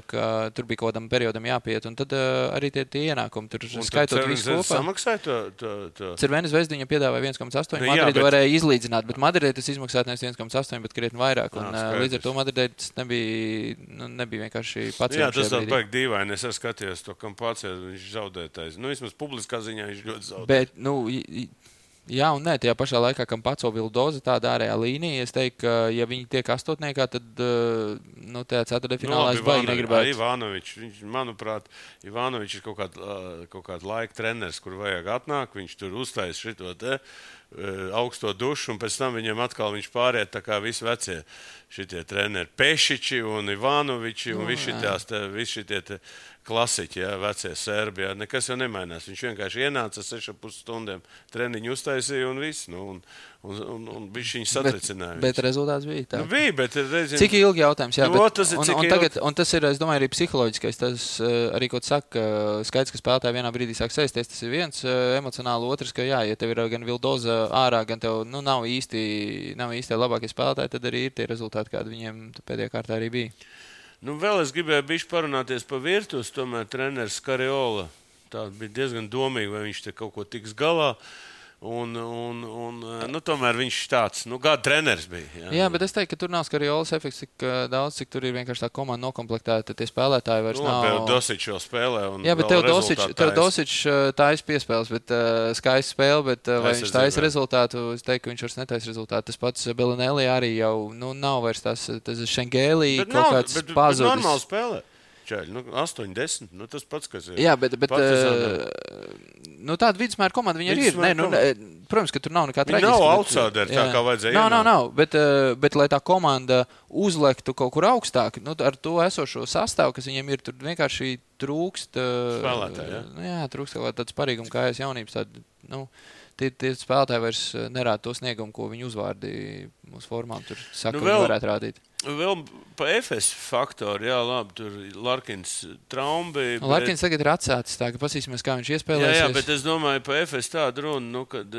ka tur bija kaut kādam periodam jāpiet, un tad arī tie ienākumi tur skaitot visu kopā. Samaksāja to? Cervenes Zvezda viņam piedāvāja 1,8, Madridi varēja izlīdzināt, bet Madridē tas izmaksāt nevis 1,8, bet krietni vairāk, un līdz ar to Madridē tas nebija vienkārši pacients. Jā, tas tā baigi dīvaini, es skatījos to, kam pacēt, viņš zaudētais. Vismaz publiskā ziņā viņš ļoti zaudēja. Bet, jā un nē, tajā pašā laikā, kam paco Vildoza tāda ārējā līnija, es teiktu, ka, ja viņi tiek astotniekā, tad tajā ceturtfinālā es baigi negribētu. Ivanovičs, manuprāt, Ivanovičs ir kaut kāda laika treneris, kur vajag atnāk, viņš tur uztais šito augsto dušu, un pēc tam viņam atkal viņš pāriet tā kā visi vecie šitie treneri Pešiči un Ivanoviči un visi šitie klasiķi, vecie serbi, nekas jau nemainās. Viņš vienkārši ienāca 6,5 stundiem treniņu uztaisīja un viss, un viņš satricināja. Bet rezultāts bija tā. Bija, bet reizēm... Cik ilgi jautājums, jā, un tas ir, es domāju, arī psiholoģiskais, tas arī, ko tu saka, skaidrs, ka spēlētāji vienā brīdī sāk sēsties, tas ir viens emocionāli, otrs, ka jā, ja tev ir gan Vildoza ārā, gan tev, nav īsti labākie spēlētāji, tad arī ir tie rezultāti, kādi viņiem pēdējā kārtā arī bija. Vēl es gribēju bišķi parunāties par Virtus, tomēr treneris Kariola. Tā bija diezgan domīgi, vai viņš te kaut ko tiks galā. Tomēr viņš tāds, gada treneris bija. Jā, bet es teiktu, ka tur nav Kariolas efekts tik daudz, cik tur ir vienkārši tā komanda nokomplektēta, tie spēlētāji vairs nav. Tev Dosičs vēl spēlē un jā, bet tev Dosičs taisa piespēles, bet skaista spēle, bet vai viņš taisa rezultātu, es teiktu, ka viņš vairs netaisa rezultātu. Tas pats Belinelli arī jau, nav vairs tas Šengēlī kaut kāds pazudis. Bet normāli spēlē. 8, 10, tas pats, kas ir. Jā, bet tāda vidusmēra komanda viņa arī ir. Protams, ka tur nav nekā traģiska. Viņa nav outsideri, tā kā vajadzēja. Nav, bet lai tā komanda uzlektu kaut kur augstāk, ar to esošo sastāvu, kas viņiem ir, tur vienkārši trūkst spēlētāji, jā, trūkst kaut tāds parīgums kājas jaunības. Tie spēlētāji vairs nerāda to sniegumu, ko viņi uzvārdi mūsu formām. Tur saka, viņi varētu rādīt. Vēl pa FS faktoru, jā, labi, tur Larkins trauma bija. Larkins tagad ir atsācis, tā ka pasīsimies, kā viņš iespēlēsies. Jā, bet es domāju, pa FS tādu runu, kad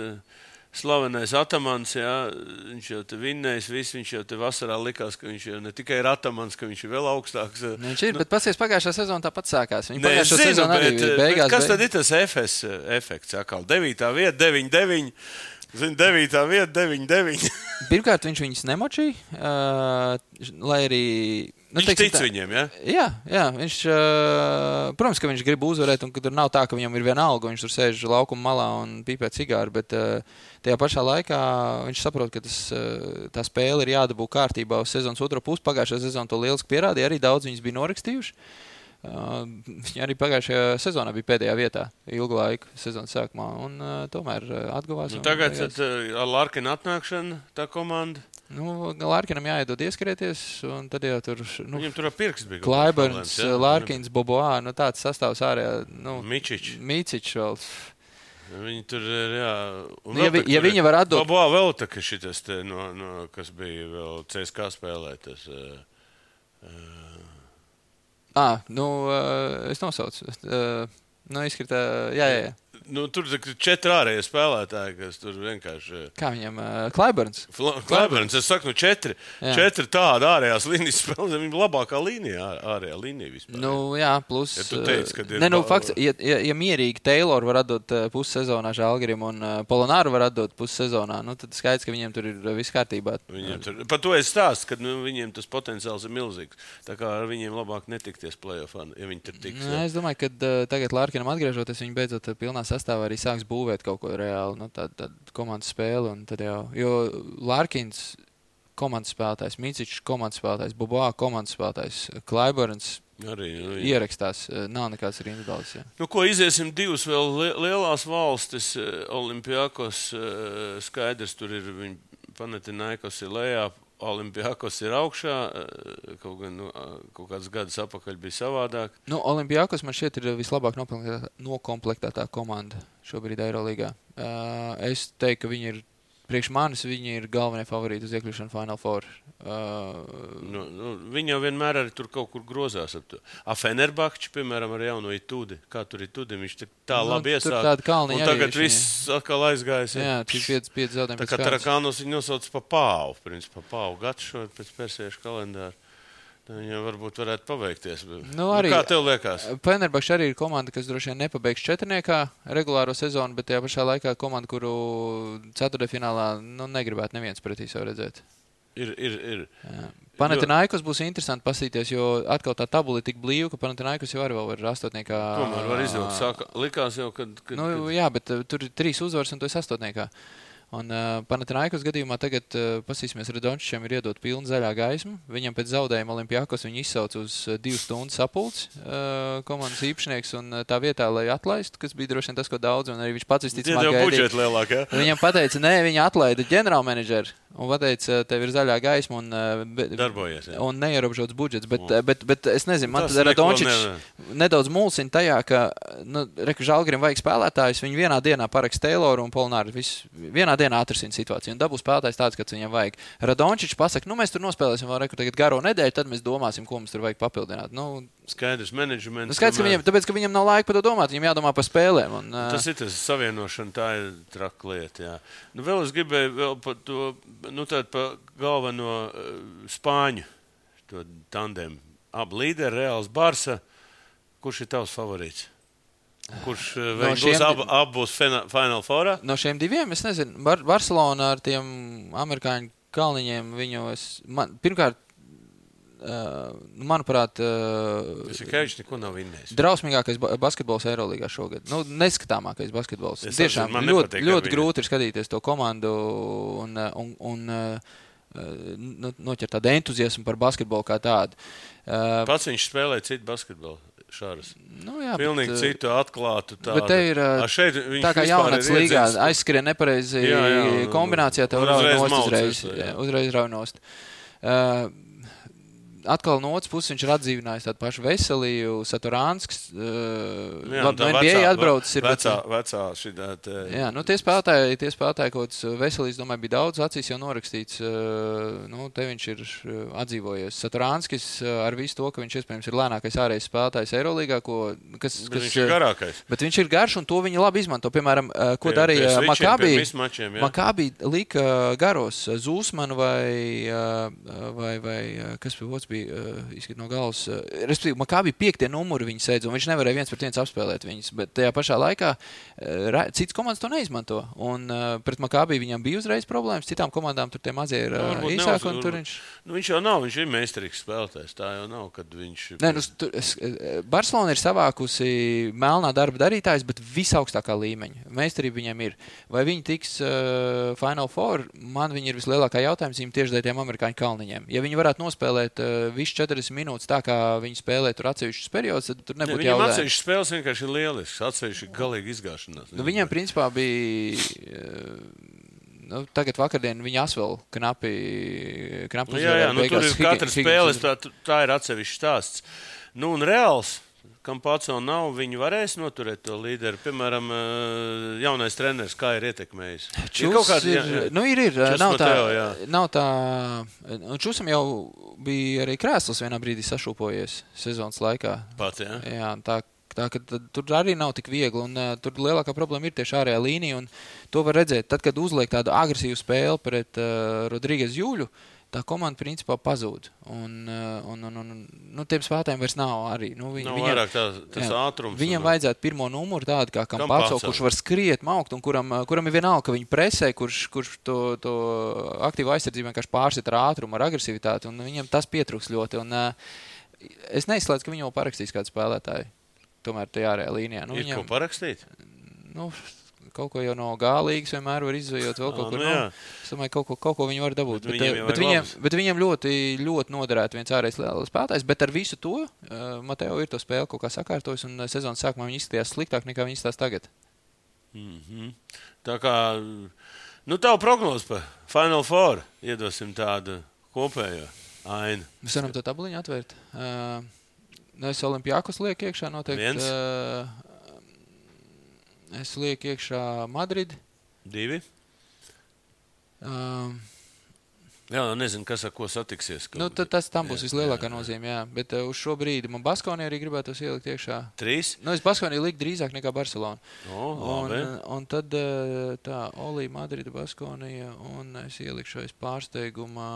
slavenais Atamans, jā, viņš jau te vinnējis visu, viņš jau te vasarā likās, ka viņš jau ne tikai ir Atamans, ka viņš ir vēl augstāks. Viņš ir, bet pasies pagājušā sezona tāpat sākās. Viņi pagājušā sezona arī beigās. Kas tad ir tas FS efekts? Atkal 9. vieta, 9-9. Zini, 9. vieta, 9-9. Pirmkārt, viņš viņus nemočīja, lai arī... Nu, viņš tic viņiem, ja? Jā, viņš, protams, ka viņš grib uzvarēt, un ka tur nav tā, ka viņam ir viena alga, viņš tur sēž laukuma malā un pīpē cigāru, bet tajā pašā laikā viņš saprot, ka tā spēle ir jādabū kārtībā uz sezonas otro pusi. Pagājušajā sezonā to lieliski pierādīja, arī daudz viņus bija norakstījuši. Viņi arī pagājušajā sezonā bija pēdējā vietā ilgu laiku sezonas sākumā, un tomēr atguvās. Nu, tagad ar Larkina atnākšanu tā komanda? Nu, Larkinam jāiedod ieskrieties, un tad jau tur... Nu, viņam tur ar pirksts bija. Klaiberns, Larkins, Boboā, nu tāds sastāvs ārējā... Nu, Micič vēl. Viņi tur ir, jā... Ja viņi var atdot... Boboā vēl tā, ka šitas te, kas bija vēl CSK spēlē, tas... es nosaucu. Izskatā, jā. Nu, tur ir 4 ārējie spēlētāji, kas tur vienkārši... Kā viņam? Klaiberns? Klaiberns, es saku, 4. 4 tāda ārējās līnijas spēlē, viņa labākā līnija, ārējā līnija vispār. Nu, jā, plus... Ja tu teici, kad ir... fakts, ja mierīgi Taylor var atdot pussezonā Žalgirim un Polonāru var atdot pussezonā, nu, tad skaidrs, ka viņiem tur ir viss kārtībā. Par to es stāstu, ka viņiem tas potenciāls ir milzīgs. Tā kā ar viņiem labāk netikties play-offā, ja viņi tur tiks. Es domāju, ka tagad Larkinam atgriežoties, viņi beidzot pilnā sastāvā arī sāks būvēt kaut ko reāli, tādu komandas spēli, un tad jau, jo Larkins komandas spēlētājs, Micičs komandas spēlētājs, Boboā komandas spēlētājs, Klaiberns arī ierakstās, nav nekāds arī individuāls. Jā. Nu, ko iziesim 2 vēl lielās valstis, Olimpiakos skaidrs, tur ir viņi Panathinaikos ir lejā, Olimpiakos ir augšā, kaut kāds gadus apakaļ bija savādāk. Nu, Olimpiakos man šķiet ir vislabāk nokomplektētā komanda šobrīd Eirolīgā. Es teiktu, ka viņi ir, priekš manis, viņi ir galvenie favorīti uz iekļūšanu Final Four. Viņi jau vienmēr arī tur kaut kur grozās ap to. Fenerbahči, piemēram, ar jauno Itudi. Kā tur Itudi? Viņš tā labi iesāk. Un tagad viss atkal aizgājis. Jā, tur 5 zaudējumi. Tā kā Tarakānos viņi nosauc pa Pāvu. Principā pa Pāvu gadu šo pēc persiešu kalendāru. Viņam varbūt varētu paveikties. Kā tev liekas? Fenerbahči arī ir komanda, kas droši vien nepabeigs 4. regulāro sezonu, bet tajā pašā laikā komanda, kuru 4. finālā negribētu neviens pretī sev redzēt. Ir. Panathinaikos būs interesanti pasīties, jo atkal tā tabula ir tik blīva, ka Panathinaikos jau arī vēl var 8. Tomēr var izvilkt. Likās jau, kad... Jā, bet tur ir 3 uzvaras un tu esi 8. Un Panathinaikos gadījumā tagad pasīsimies, Radončičam ir iedot pilnu zaļā gaismu. Viņam pēc zaudējuma Olimpiakos viņu izsauc uz 2 stundu sapulci komandas īpašnieks un tā vietā, lai atlaistu, kas bija droši vien tas, ko daudz, un arī viņš pats visticamāk gaidīja. Lielāk, ja? Viņam pateica, nē, viņa atlaida ģenerālmenedžeri un pateica, tev ir zaļa gaisma un, darbojies, un neierobežots budžets. Bet es nezinu, man tad Radončičs nedaudz mulsina tajā, ka Žalgirim vajag spēlētājus, viņi vienā dienā parakst Tayloru un Polonāru vienā dienā atrisina situāciju un dabūs spēlētājs tāds, kāds viņam vajag. Radončičs pasaka, mēs tur nospēlēsim vēl tagad garo nedēļu, tad mēs domāsim, ko mums tur vajag papildināt. Skaidrs, menedžments. Skaidrs, ka tāpēc, ka viņam nav laika par to domāt, viņam jādomā par spēlēm. Tas ir tas savienošana, tā ir traka lieta, jā. Vēl es gribēju vēl par to, par galveno Spāņu, to tandemu. Abi līderi, Reāls Barsa. Kurš ir tavs favorīts? Kurš būs Final Fourā? No šiem 2, es nezinu. Barcelona ar tiem amerikāņu kalniņiem pirmkārt, manuprāt, Jasikevičs neko nav vinnējis. Drausmīgākais basketbols Eirolīgā šogad. Neskatāmākais basketbols. Tiešām ļoti grūti ir skatīties to komandu un noķert tādu entuziasmu par basketbolu kā tādu. Pats viņš spēlē citu basketbolu. Šāras. Jā, pilnīgi citu atklātu tādu. Bet te ir tā kā jaunats līgā aizskrien nepareizi kombinācijā, tev uzreiz raunost. Atkal no otras puses viņš ir atdzīvinājis tādu pašu Veseliju, Saturānsks. NBA atbraucis ir vecā šitā. Jā, tie spēlētāji kaut kāds Veselīs, domāju, bija daudz acīs jau norakstīts. Te viņš ir atdzīvojies. Saturānskis ar visu to, ka viņš iespējams ir lēnākais ārējais spēlētājs Eirolīgā, viņš ir garākais. Bet viņš ir garš un to viņi labi izmanto. Piemēram, ko darīja Makābi lika garos Zūsmanu vai kas bija otrs bija izskat no galvas. Respektīvi, Makābi 5. numuri viņi sēdz, un viņš nevarēja 1-1 apspēlēt viņus, bet tajā pašā laikā citas komandas to neizmanto. Un pret Makābi viņam bija uzreiz problēmas, citām komandām tur tie mazie ir īsāk, un tur viņš... Viņš jau nav, viņš ir meistarīgs spēlētājs, tā jau nav, kad viņš... Nē, Barcelona ir savākusi melnā darba darītājs, bet visaugstākā līmeņa. Meistarība viņam ir. Vai viņi tiks Final Four? Man viņi ir vislielākā jautājums viņam tieši dēļ tiem amerikāņu kalniņiem. Ja viņi varētu nospēlēt visu 40 minūtes tā, kā viņi spēlē tur atsevišķus periodus, tad tur nebūtu jautājums. Viņam atsevišķas spēles vienkārši ir lielisks, atsevišķi galīgi izgāšanās. Viņam principā bija... tagad vakardien viņa asvēl knapi jā, tur ir katras spēles, tā ir atsevišķi stāsts. Un Reāls, kam pats vēl nav, viņi varēs noturēt to līderi. Piemēram, jaunais treneris, kā ir ietekmējis? Nav tā. Čusam jau bija arī krēsls vienā brīdī sašūpojies sezonas laikā. Pats, jā? Jā, tā ka tur arī nav tik viegli, un tur lielākā problēma ir tieši ārējā līnija, un to var redzēt. Tad, kad uzliek tādu agresīvu spēli pret Rodrīgas Juļu, tā komanda principā pazūd. Un tiem spēlētājiem vairs nav arī. Nav vairāk tas ātrums. Viņam vajadzētu pirmo numuru tādu kā Campazzo, kurš var skriet, maukt, un kuram ir vienalga, ka viņi presē, kurš to aktīvu aizsardzību vienkārši pārsit ar ātrumu, ar agresivitāti, un viņam tas pietrūks ļoti. Un es neizslēdzu, ka viņi jau parakstīs kādu spēlētāju. Tomēr tajā ārējā līnijā. Ko parakstīt? Kaut ko jau no G-līgas vienmēr var izvējot vēl kaut kur. Es domāju, kaut ko viņi var dabūt. Bet viņiem ļoti, ļoti noderētu viens ārējais spēlētājs, bet ar visu to Mateo ir to spēli kaut kā sakārtojis, un sezonas sākumā viņi izskatījās sliktāk nekā viņi izskatās tagad. Tā kā, tavu prognozi par Final Four iedosim tādu kopējo ainu. Mēs varam to tabuliņu atvērt. Es Olimpiakos lieku iekšā noteikti. Es lieku iekšā Madrid. 2. Jā, nezinu, kas ar ko satiksies. Tas tam būs vislielākā nozīme, jā. Bet uz šo brīdi man Baskonija arī gribētos ielikt iekšā. 3? Es Baskoniju liku drīzāk nekā Barcelona. Labi. Un tad tā, Olī, Madrida, Baskonija, un es ielikšu aiz pārsteigumā...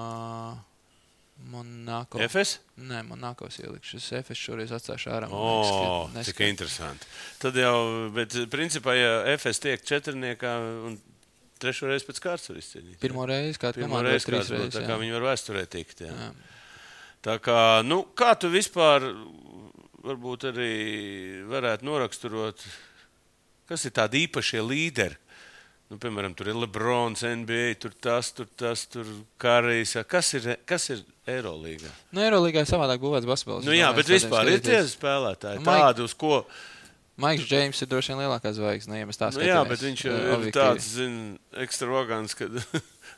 Monako. Efes? Nē, Monakos ielikšu. Es Efes šoreiz atstāšu ārā. Cik interesanti. Tad jau, bet principā, ja Efes tiek 4-niekā un 3. reizi pēc kārtas var izcīnīt. Pirmo reizi, kāda komanda būs 3 reizes. Tā kā viņi var vēsturē tikt. Jā. Tā kā, kā tu vispār varbūt arī varētu noraksturot, kas ir tādi īpašie līderi? Piemēram, tur ir Lebrons, NBA, tur Karijs. Kas ir Eirolīgā? Eirolīgā ir savādāk būvēts basketbols. Jā, bet vispār ir tie spēlētāji tādi, uz ko... Maiks Džeims ir droši vien lielākā zvaigzne, ja mēs tā skatāmies. Jā, bet viņš ir tāds, ekstravagants, kad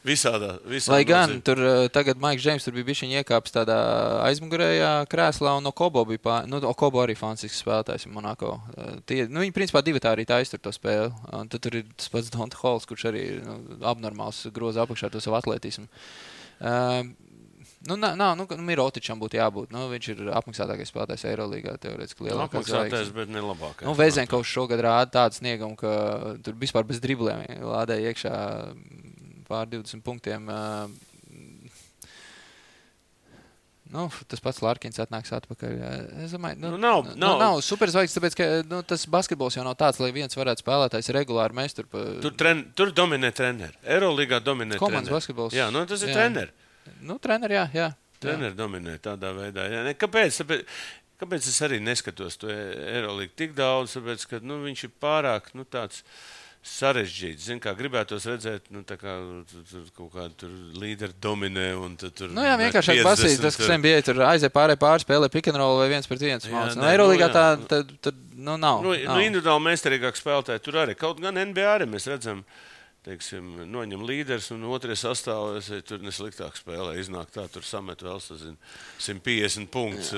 visādā Lai gan tur tagad Maiks Džeims tur bija bišķiņ iekāpis tādā aizmugurējā krēslā, un Okobo bija Okobo arī fantastisks spēlētājs Monako. Viņi principā divi tā arī taistur to spēli. Un tad tur ir tas pats Donta Halls, kurš arī abnormāls groza apakšā to savu atletismu. Mirotičam būtu jābūt. Viņš ir apmaksātākais spēlētājs Eirolīgā, teorētiski lielākās apmaksātājs, bet ne labākais. Vezenkovs šogad rāda tādu sniegumu, ka tur vispār bez driblēm lādēja iekšā pār 20 punktiem. Tas pats Larkins atnāks atpakaļ. Es domāju, nav superzvaigznes, tāpēc, ka tas basketbols jau nav tāds, lai viens varētu spēlētājs regulāri mēs tur... Tur dominē treneri. Eirolīgā dominē treneri. Komandas basketbols. Jā, tas ir treneri. Treneri, jā. Treneri dominē tādā veidā. Jā. Kāpēc es arī neskatos to Eirolīgu tik daudz? Tāpēc, ka viņš ir pārāk tāds sarežģīts. Zin, kā gribētos redzēt, tā kā kaut kādu līderi dominē. Un tur vienkārši basīt, tas, kas NBA tur aizē pāri spēlē pick and roll vai 1-1 māc. Eirolīgā tā nav. Individuāli meistarīgāk spēlētāji tur arī. Kaut gan NBA arī mēs redzam, teiksim, noņem līderis un otrais sastāvs, tur nesliktāk spēlē. Iznāk tā, tur samet vēl, 150 punktus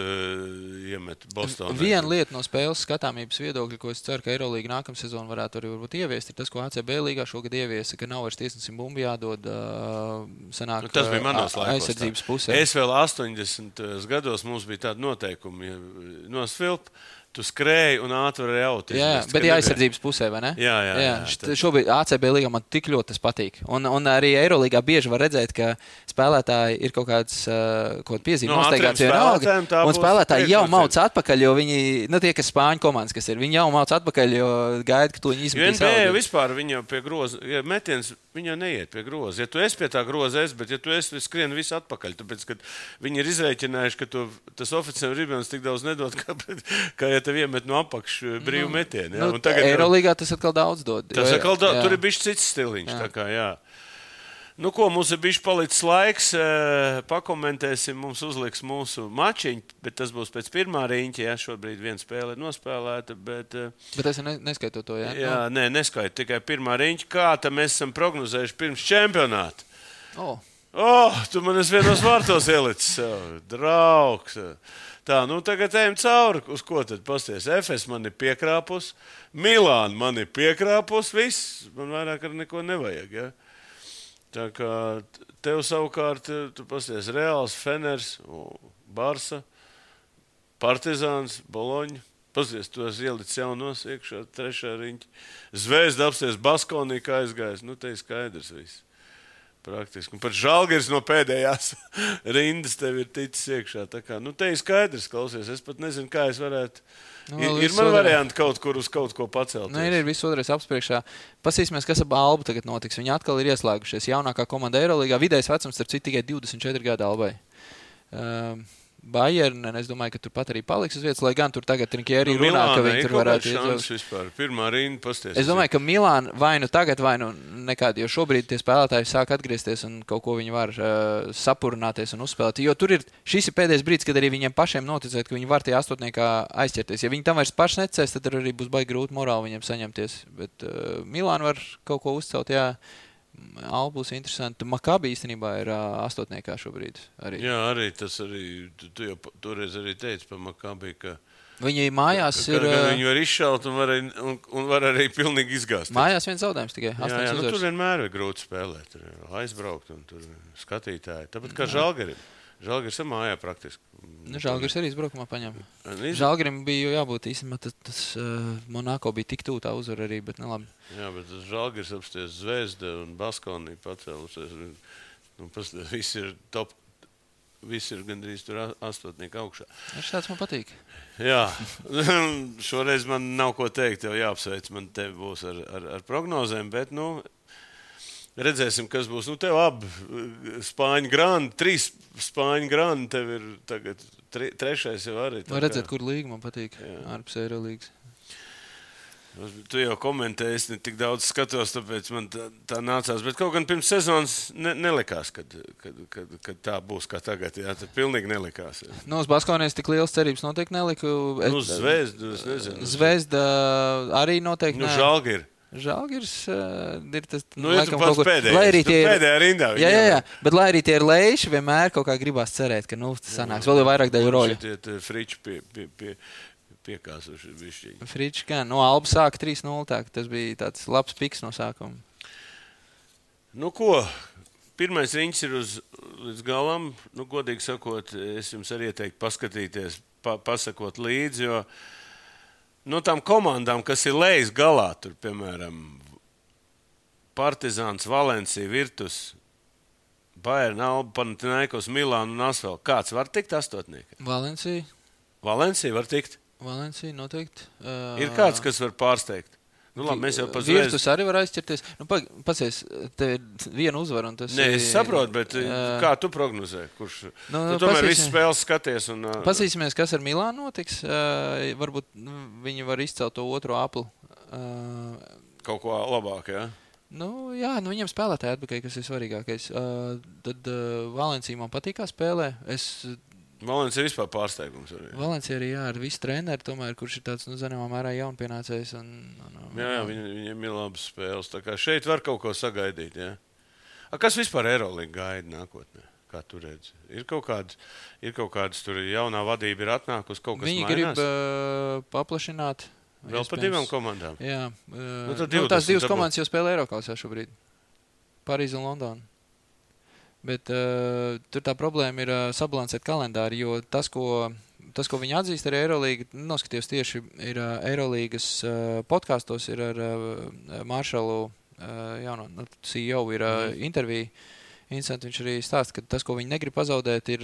iemet Bostonā. Viena lieta no spēles skatāmības viedokļa, ko es ceru, ka Eirolīga nākamā sezona varētu arī varbūt ieviest, ir tas, ko ACB līgā šogad ieviesa, ka nav vairs tiesnesim bumbu jādod sanāk tas bija manos laikos, aizsardzības pusē. Es vēl 80 gados mums bija tādi noteikumi, nosvilp, tu skrēji un ātri varēji aut. Jā, bet aizsardzības pusē, vai ne? Jā. Šobrīd ACB līgā man tik ļoti tas patīk. Un arī Eirolīgā bieži var redzēt, ka spēlētāji ir kaut kāds piezīme nosteigāts vienalga. Un spēlētāji jau mauc atpakaļ, jo viņi, tie, kas spāņu komandas, kas ir, viņi jau mauc atpakaļ, jo gaida, ka to viņi izmetīs. NBA vispār viņa pie groza, ja metiens, viņa neiet pie groza. Ja tu esi pie tā groza, bet ja tu esi skrien visu atpakaļ, tāpēc, ka viņi ir izrēķinājuši, ka tas oficiāli ribens tik daudz nedod, kā ja tev iemet no apakš brīvu metienu. Ja? Eirolīgā tas atkal daudz dod. Tur ir bišķi cits stiliņš. Tā kā, jā. Nu, ko, mums ir bišķi palicis laiks. Pakomentēsim, mums uzliks mūsu mačiņu, bet tas būs pēc pirmā riņķa. Ja? Šobrīd viena spēle ir nospēlēta. Bet es neskaitu to, jā? Jā, nē, neskaitu. Tikai pirmā riņķa. Kā tam mēs esam prognozējuši pirms čempionāta? Tu man esi vienos vārtos ielicis. Draugs. Tā, tagad ejam cauri. Uz ko tad pasties? FS man ir piekrāpus, Milāna man ir piekrāpus, viss. Man vairāk ar neko nevajag, ja? Tā kā tev savukārt, tu pasties Reāls, Feners, Barsa, Partizāns, Boloņa. Pasties, tu esi ielicis jaunos iekšā, trešā riņķa. Zvezda apsties Baskonī, kā aizgājis. Te ir skaidrs viss. Praktiski. Un pat Žalgiris no pēdējās rindas tev ir ticis iekšā. Tā kā, te ir skaidrs, klausies. Es pat nezinu, kā es varētu. Ir man varianti kaut kur uz kaut ko pacelt. Ir viss otrais apspriekšā. Pasīsimies, kas ar Albu tagad notiks. Viņi atkal ir ieslēgušies. Jaunākā komanda Eirolīgā. Vidējais vecums, starp citu, tikai 24 gadu Albai. Bayern, es domāju, ka tur pat arī paliks uz vietas, lai gan tur tagad Trinkieri runā, ka viņi tur varētu iedzaukt. Pirmā rinda pasties. Es domāju, ka Milāna vai nu tagad, vai nu nekādi, jo šobrīd tie spēlētāji sāk atgriezties un kaut ko viņi var sapurināties un uzspēlēt. Jo tur šis ir pēdējais brīdis, kad arī viņiem pašiem noticēt, ka viņi var tie astotniekā aizķerties. Ja viņi tam vairs paši necēs, tad arī būs baigi grūti morāli viņiem saņemties. Bet Milāna var kaut ko uzcelt, jā. Alba būs interesanti. Makabi īstenībā ir astotniekā šobrīd. Arī. Jā, arī tas arī, tu jau toreiz arī teici par Makabi, ka viņi mājās ir... Viņi var izšaut un var arī pilnīgi izgāzt. Mājās viens zaudējums tikai. Jā, tur vienmēr ir grūti spēlēt. Tur aizbraukt un tur skatītāji. Tāpat kā Žalgirim. Žalgiris ir mājā praktiski. Žalgiris arī izbraukumā paņem. Žalgirim bija jābūt īstenībā, tas Monako bija tik tū tā uzvara arī, bet nelabi. Jā, bet tas Žalgiris apsties Zvezda un Baskonī pacēlusies. Viss ir top, viss ir gandrīz tur astotnieki augšā. Tāds man patīk. Jā, šoreiz man nav ko teikt, tev jāapsveic, man te būs ar prognozēm, bet, redzēsim, kas būs. Tev abi Spāņu grandi, 3 Spāņu grandi, tev ir tagad 3. jau arī. Var redzēt, kur līga man patīk, ārpus Eirolīgas. Tu jau komentēji, es ne tik daudz skatos, tāpēc man tā nācās. Bet kaut gan pirms sezonas nelikās, kad tā būs kā tagad. Jā, tad pilnīgi nelikās. Jā. Uz Baskonijas tik liels cerības noteikti neliku. Zvezda, es nezinu. Zvezda arī noteikti ne. Žalgiris ir tas, ja tu pats pēdējā rindā. Jā, bet lai arī tie ir leiši, vienmēr kaut kā gribās cerēt, ka, sanāks vēl vairāk daļu roļu. Šitie friči piekāsuši bišķīgi. Friči, kā, Alba sāka 3-0, tā, tas bija tāds labs piks no sākuma. Ko? Pirmais riņķis ir līdz galam. Godīgi sakot, es jums arī ieteiktu paskatīties, pasakot līdzi, jo no tām komandām, kas ir lejas galā, tur, piemēram, Partizāns, Valencija, Virtus, Bayern, Alba, Panathinaikos, Milāna un Asvel. Kāds var tikt astotnieki? Valencija. Valencija var tikt? Valencija noteikti. Ir kāds, kas var pārsteigt? Labi, mēs jau Virtus arī var aizķerties. Pasies, te ir viena uzvara un tas ir... Nē, es saprotu, bet kā tu prognozē? Kurš... Tu tomēr visu spēles skaties un... Pasīsimies, kas ar Milānu notiks. Varbūt viņi var izcelt to otro apli. Kaut ko labāk, jā? Viņiem spēlētāji atpakaļ, kas ir svarīgākais. Tad Valencija man patīk, kā spēlē. Valencija ir vispār pārsteigums arī. Valencija arī, ar visu treneri, tomēr, kurš ir tāds, zināmā mērā jaunpienācējs. Jā, viņiem ir labas spēles. Tā kā šeit var kaut ko sagaidīt, jā. Kas vispār Eirolīga gaida nākotnē? Kā tu redzi? Ir kaut kādas tur jaunā vadība ir atnākusi, kaut kas mainās? Viņi grib paplašināt. Vēl par 2 komandām? Jā. Tās 2 komandas jau spēlē Eiroklasā šobrīd. Parīze un Londona. Bet tur tā problēma ir sabalansēt kalendāri, jo tas, ko tas, ko viņi atzīst arī Eirolīga, noskatījos tieši ir Eirolīgas podkastos, ir ar Maršalu jauno CEO ir intervija. Interesanti, viņš arī stāsta, ka tas, ko viņi negrib pazaudēt, ir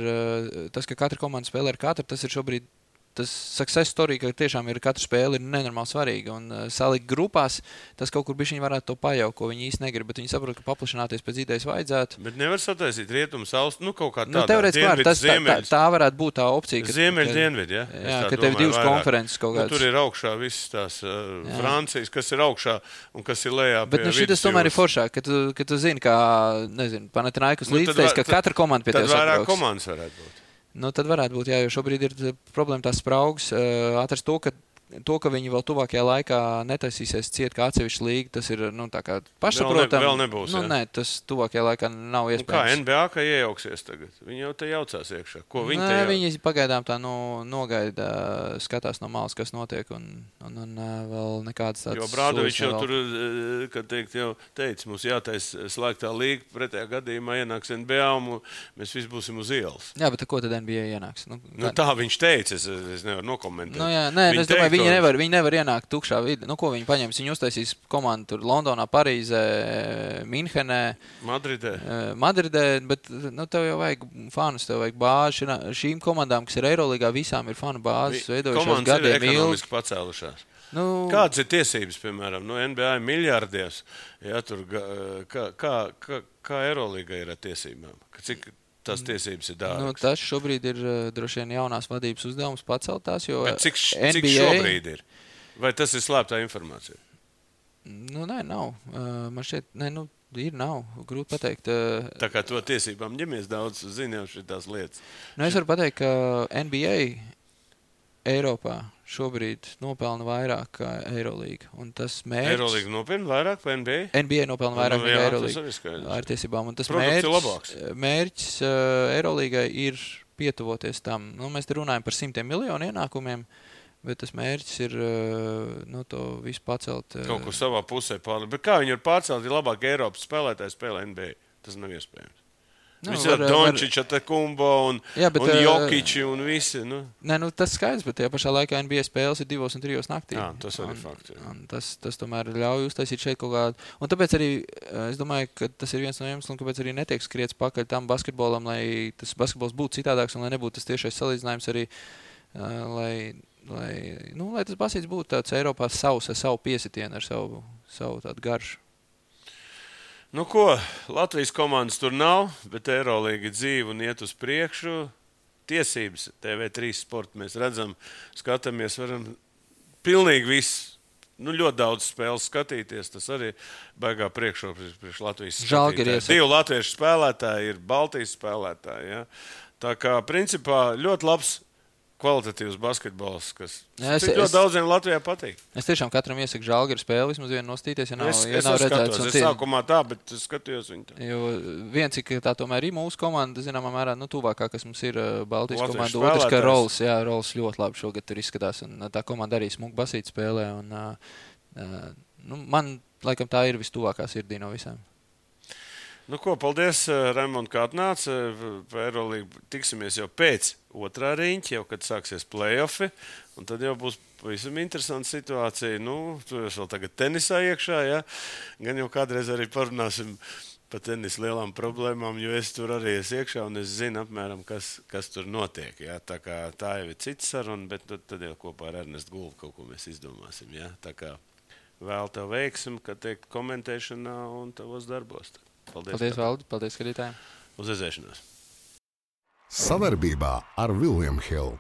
tas, ka katra komanda spēlē ar katru, tas ir šobrīd tas success story, ka tiešām ir katra spēle ir nenormāli svarīga. Un salikt grupās, tas kaut kur bišķiņi varētu to pajaukt, ko viņi īsti negrib. Bet viņi saprot, ka paplašināties pēc idejas vajadzētu. Bet nevar sataisīt rietumus, austrumus, kaut kā tādā. Teorētiski tā varētu būt tā opcija. Ziemeļi, dienvidi, ja? Jā, ka tev divas konferences kaut kādas. Tur ir augšā visas tās Francijas, kas ir augšā un kas ir lejā. Bet šitas tomēr ir foršāk, ka tu zini, kā, nezinu, Panathinaikos līdztais, ka katra komanda pie tev sabrauks. Tad vairāk komandas varētu būt. Nu, tad varētu būt, jā, jo šobrīd ir problēma tās spraugas. Atrast to, ka viņi vēl tuvākajā laikā netaisīsies ciet kā atsevišķi līga, tas ir, tā kā pašsaprotam. Vēl nebūs, jā. Nē, tas tuvākajā laikā nav iespējams. Kā NBA, kā iejauksies tagad? Viņi jau te jaucās iekšā. Ko viņi te viņi pagaidām tā nogaida, skatās no malas, kas notiek, un vēl nekādas tādas. Jo Brādovičs jau tur, kad teikt, jau teica, mums jātais slēgtā līga, pretējā gadījumā ienāks NBA, un mēs visi būsim uz ielas. Jā, bet ko tad NBA ienāks? Tā viņš teica, es nevaru nokomentēt. Es domāju, viņi nevar ienākt tukšā vidē. Ko viņi paņems? Viņi uztaisīs komandu tur Londonā, Parīzē, Minhenē, Madridē, bet tev jau vajag fanus, tev vajag bāzi. Šīm komandām, kas ir Eirolīgā, visām ir fanu bāzes veidojušās gadiem ilgi. Komandas ir ekonomiski pacēlušās. Kādas ir tiesības, piemēram, NBA miljardies? Ja, tur, kā Eirolīga ir ar tiesībām? Cik tās tiesības ir dārgas? Tas šobrīd ir droši vien jaunās vadības uzdevums pacelt tās, jo bet cik šobrīd ir? Vai tas ir slēptā informācija? Nē, nav. Man šķiet, nav. Grūti pateikt. Tā kā to tiesībām ņemies daudz, zinām šitās lietas. Es varu pateikt, ka NBA Eiropā šobrīd nopelna vairāk kā Eirolīga. Un tas mērķis... Eirolīga nopelna vairāk par NBA? NBA nopelna vairāk nekā Eirolīga. Ar tiesībām. Un tas mērķis Eirolīgai ir pietuvoties tam. Mēs te runājam par 100 miljonu ienākumiem, bet tas mērķis ir to visu pacelt. Kaut kur savā pusē pārlikt. Bet kā viņi var pārcelt, ja labāk Eiropas spēlētāji spēlē NBA? Tas nav iespējams. Visi ar Dončiča, Kumbo un Jokiči un visi. Nē, tas skaidrs, bet tajā pašā laikā NBA spēles ir 2 un 3 naktī. Jā, tas arī fakts. Tas tomēr ļauj uztaisīt šeit kaut kādu. Un tāpēc arī es domāju, ka tas ir viens no iemesliem, kāpēc arī netiek skriets pakaļ tam basketbolam, lai tas basketbols būtu citādāks un lai nebūtu tas tiešais salīdzinājums arī, lai tas basīts būtu tāds Eiropā ar savu piesitienu, ar savu tādu garšu. Ko, Latvijas komandas tur nav, bet Eirolīga dzīve un iet uz priekšu. Tiesības TV3 sporta mēs redzam, skatāmies, varam pilnīgi visu, ļoti daudz spēles skatīties. Tas arī baigā priekšrocība priekš Latvijas skatītāji. 2 latviešu spēlētāji ir Baltijas spēlētāji. Ja? Tā kā principā ļoti labs kvalitatīvs basketbols, kas ļoti daudziem Latvijā patīk. Es tiešām katram iesaku Žalgiru spēli, vismaz vienu nostīties, ja nav redzēts. Es sākumā tā, bet es skatījos viņu tā. Jo viens, ka tā tomēr ir mūsu komanda, zināmā mērā, tuvākā, kas mums ir Baltijas komanda. Otrs, ka Rols ļoti labi šogad tur izskatās, un tā komanda arī smuku basīt spēlē, un man, laikam, tā ir vistuvākā sirdī no visām. Paldies, Raimond, kā atnāca. Eirolīga tiksimies jau pēc otrā riņķa, jau kad sāksies play-offi. Un tad jau būs pavisam interesanta situācija. Tur vēl tagad tenisā iekšā, ja? Gan jau kādreiz arī parunāsim par tenisa lielām problēmām, jo es tur arī esmu iekšā un es zinu apmēram, kas tur notiek. Ja? Tā kā tā jau ir cita saruna, bet tad jau kopā ar Ernestu Gulbu kaut ko mēs izdomāsim. Ja? Tā kā vēl tev veiksim, kad tiek komentēšanā un tavos darbos. Paldies, Valdi. Paldies, skatītājiem. Uz redzēšanos. Savarbībā ar William Hill.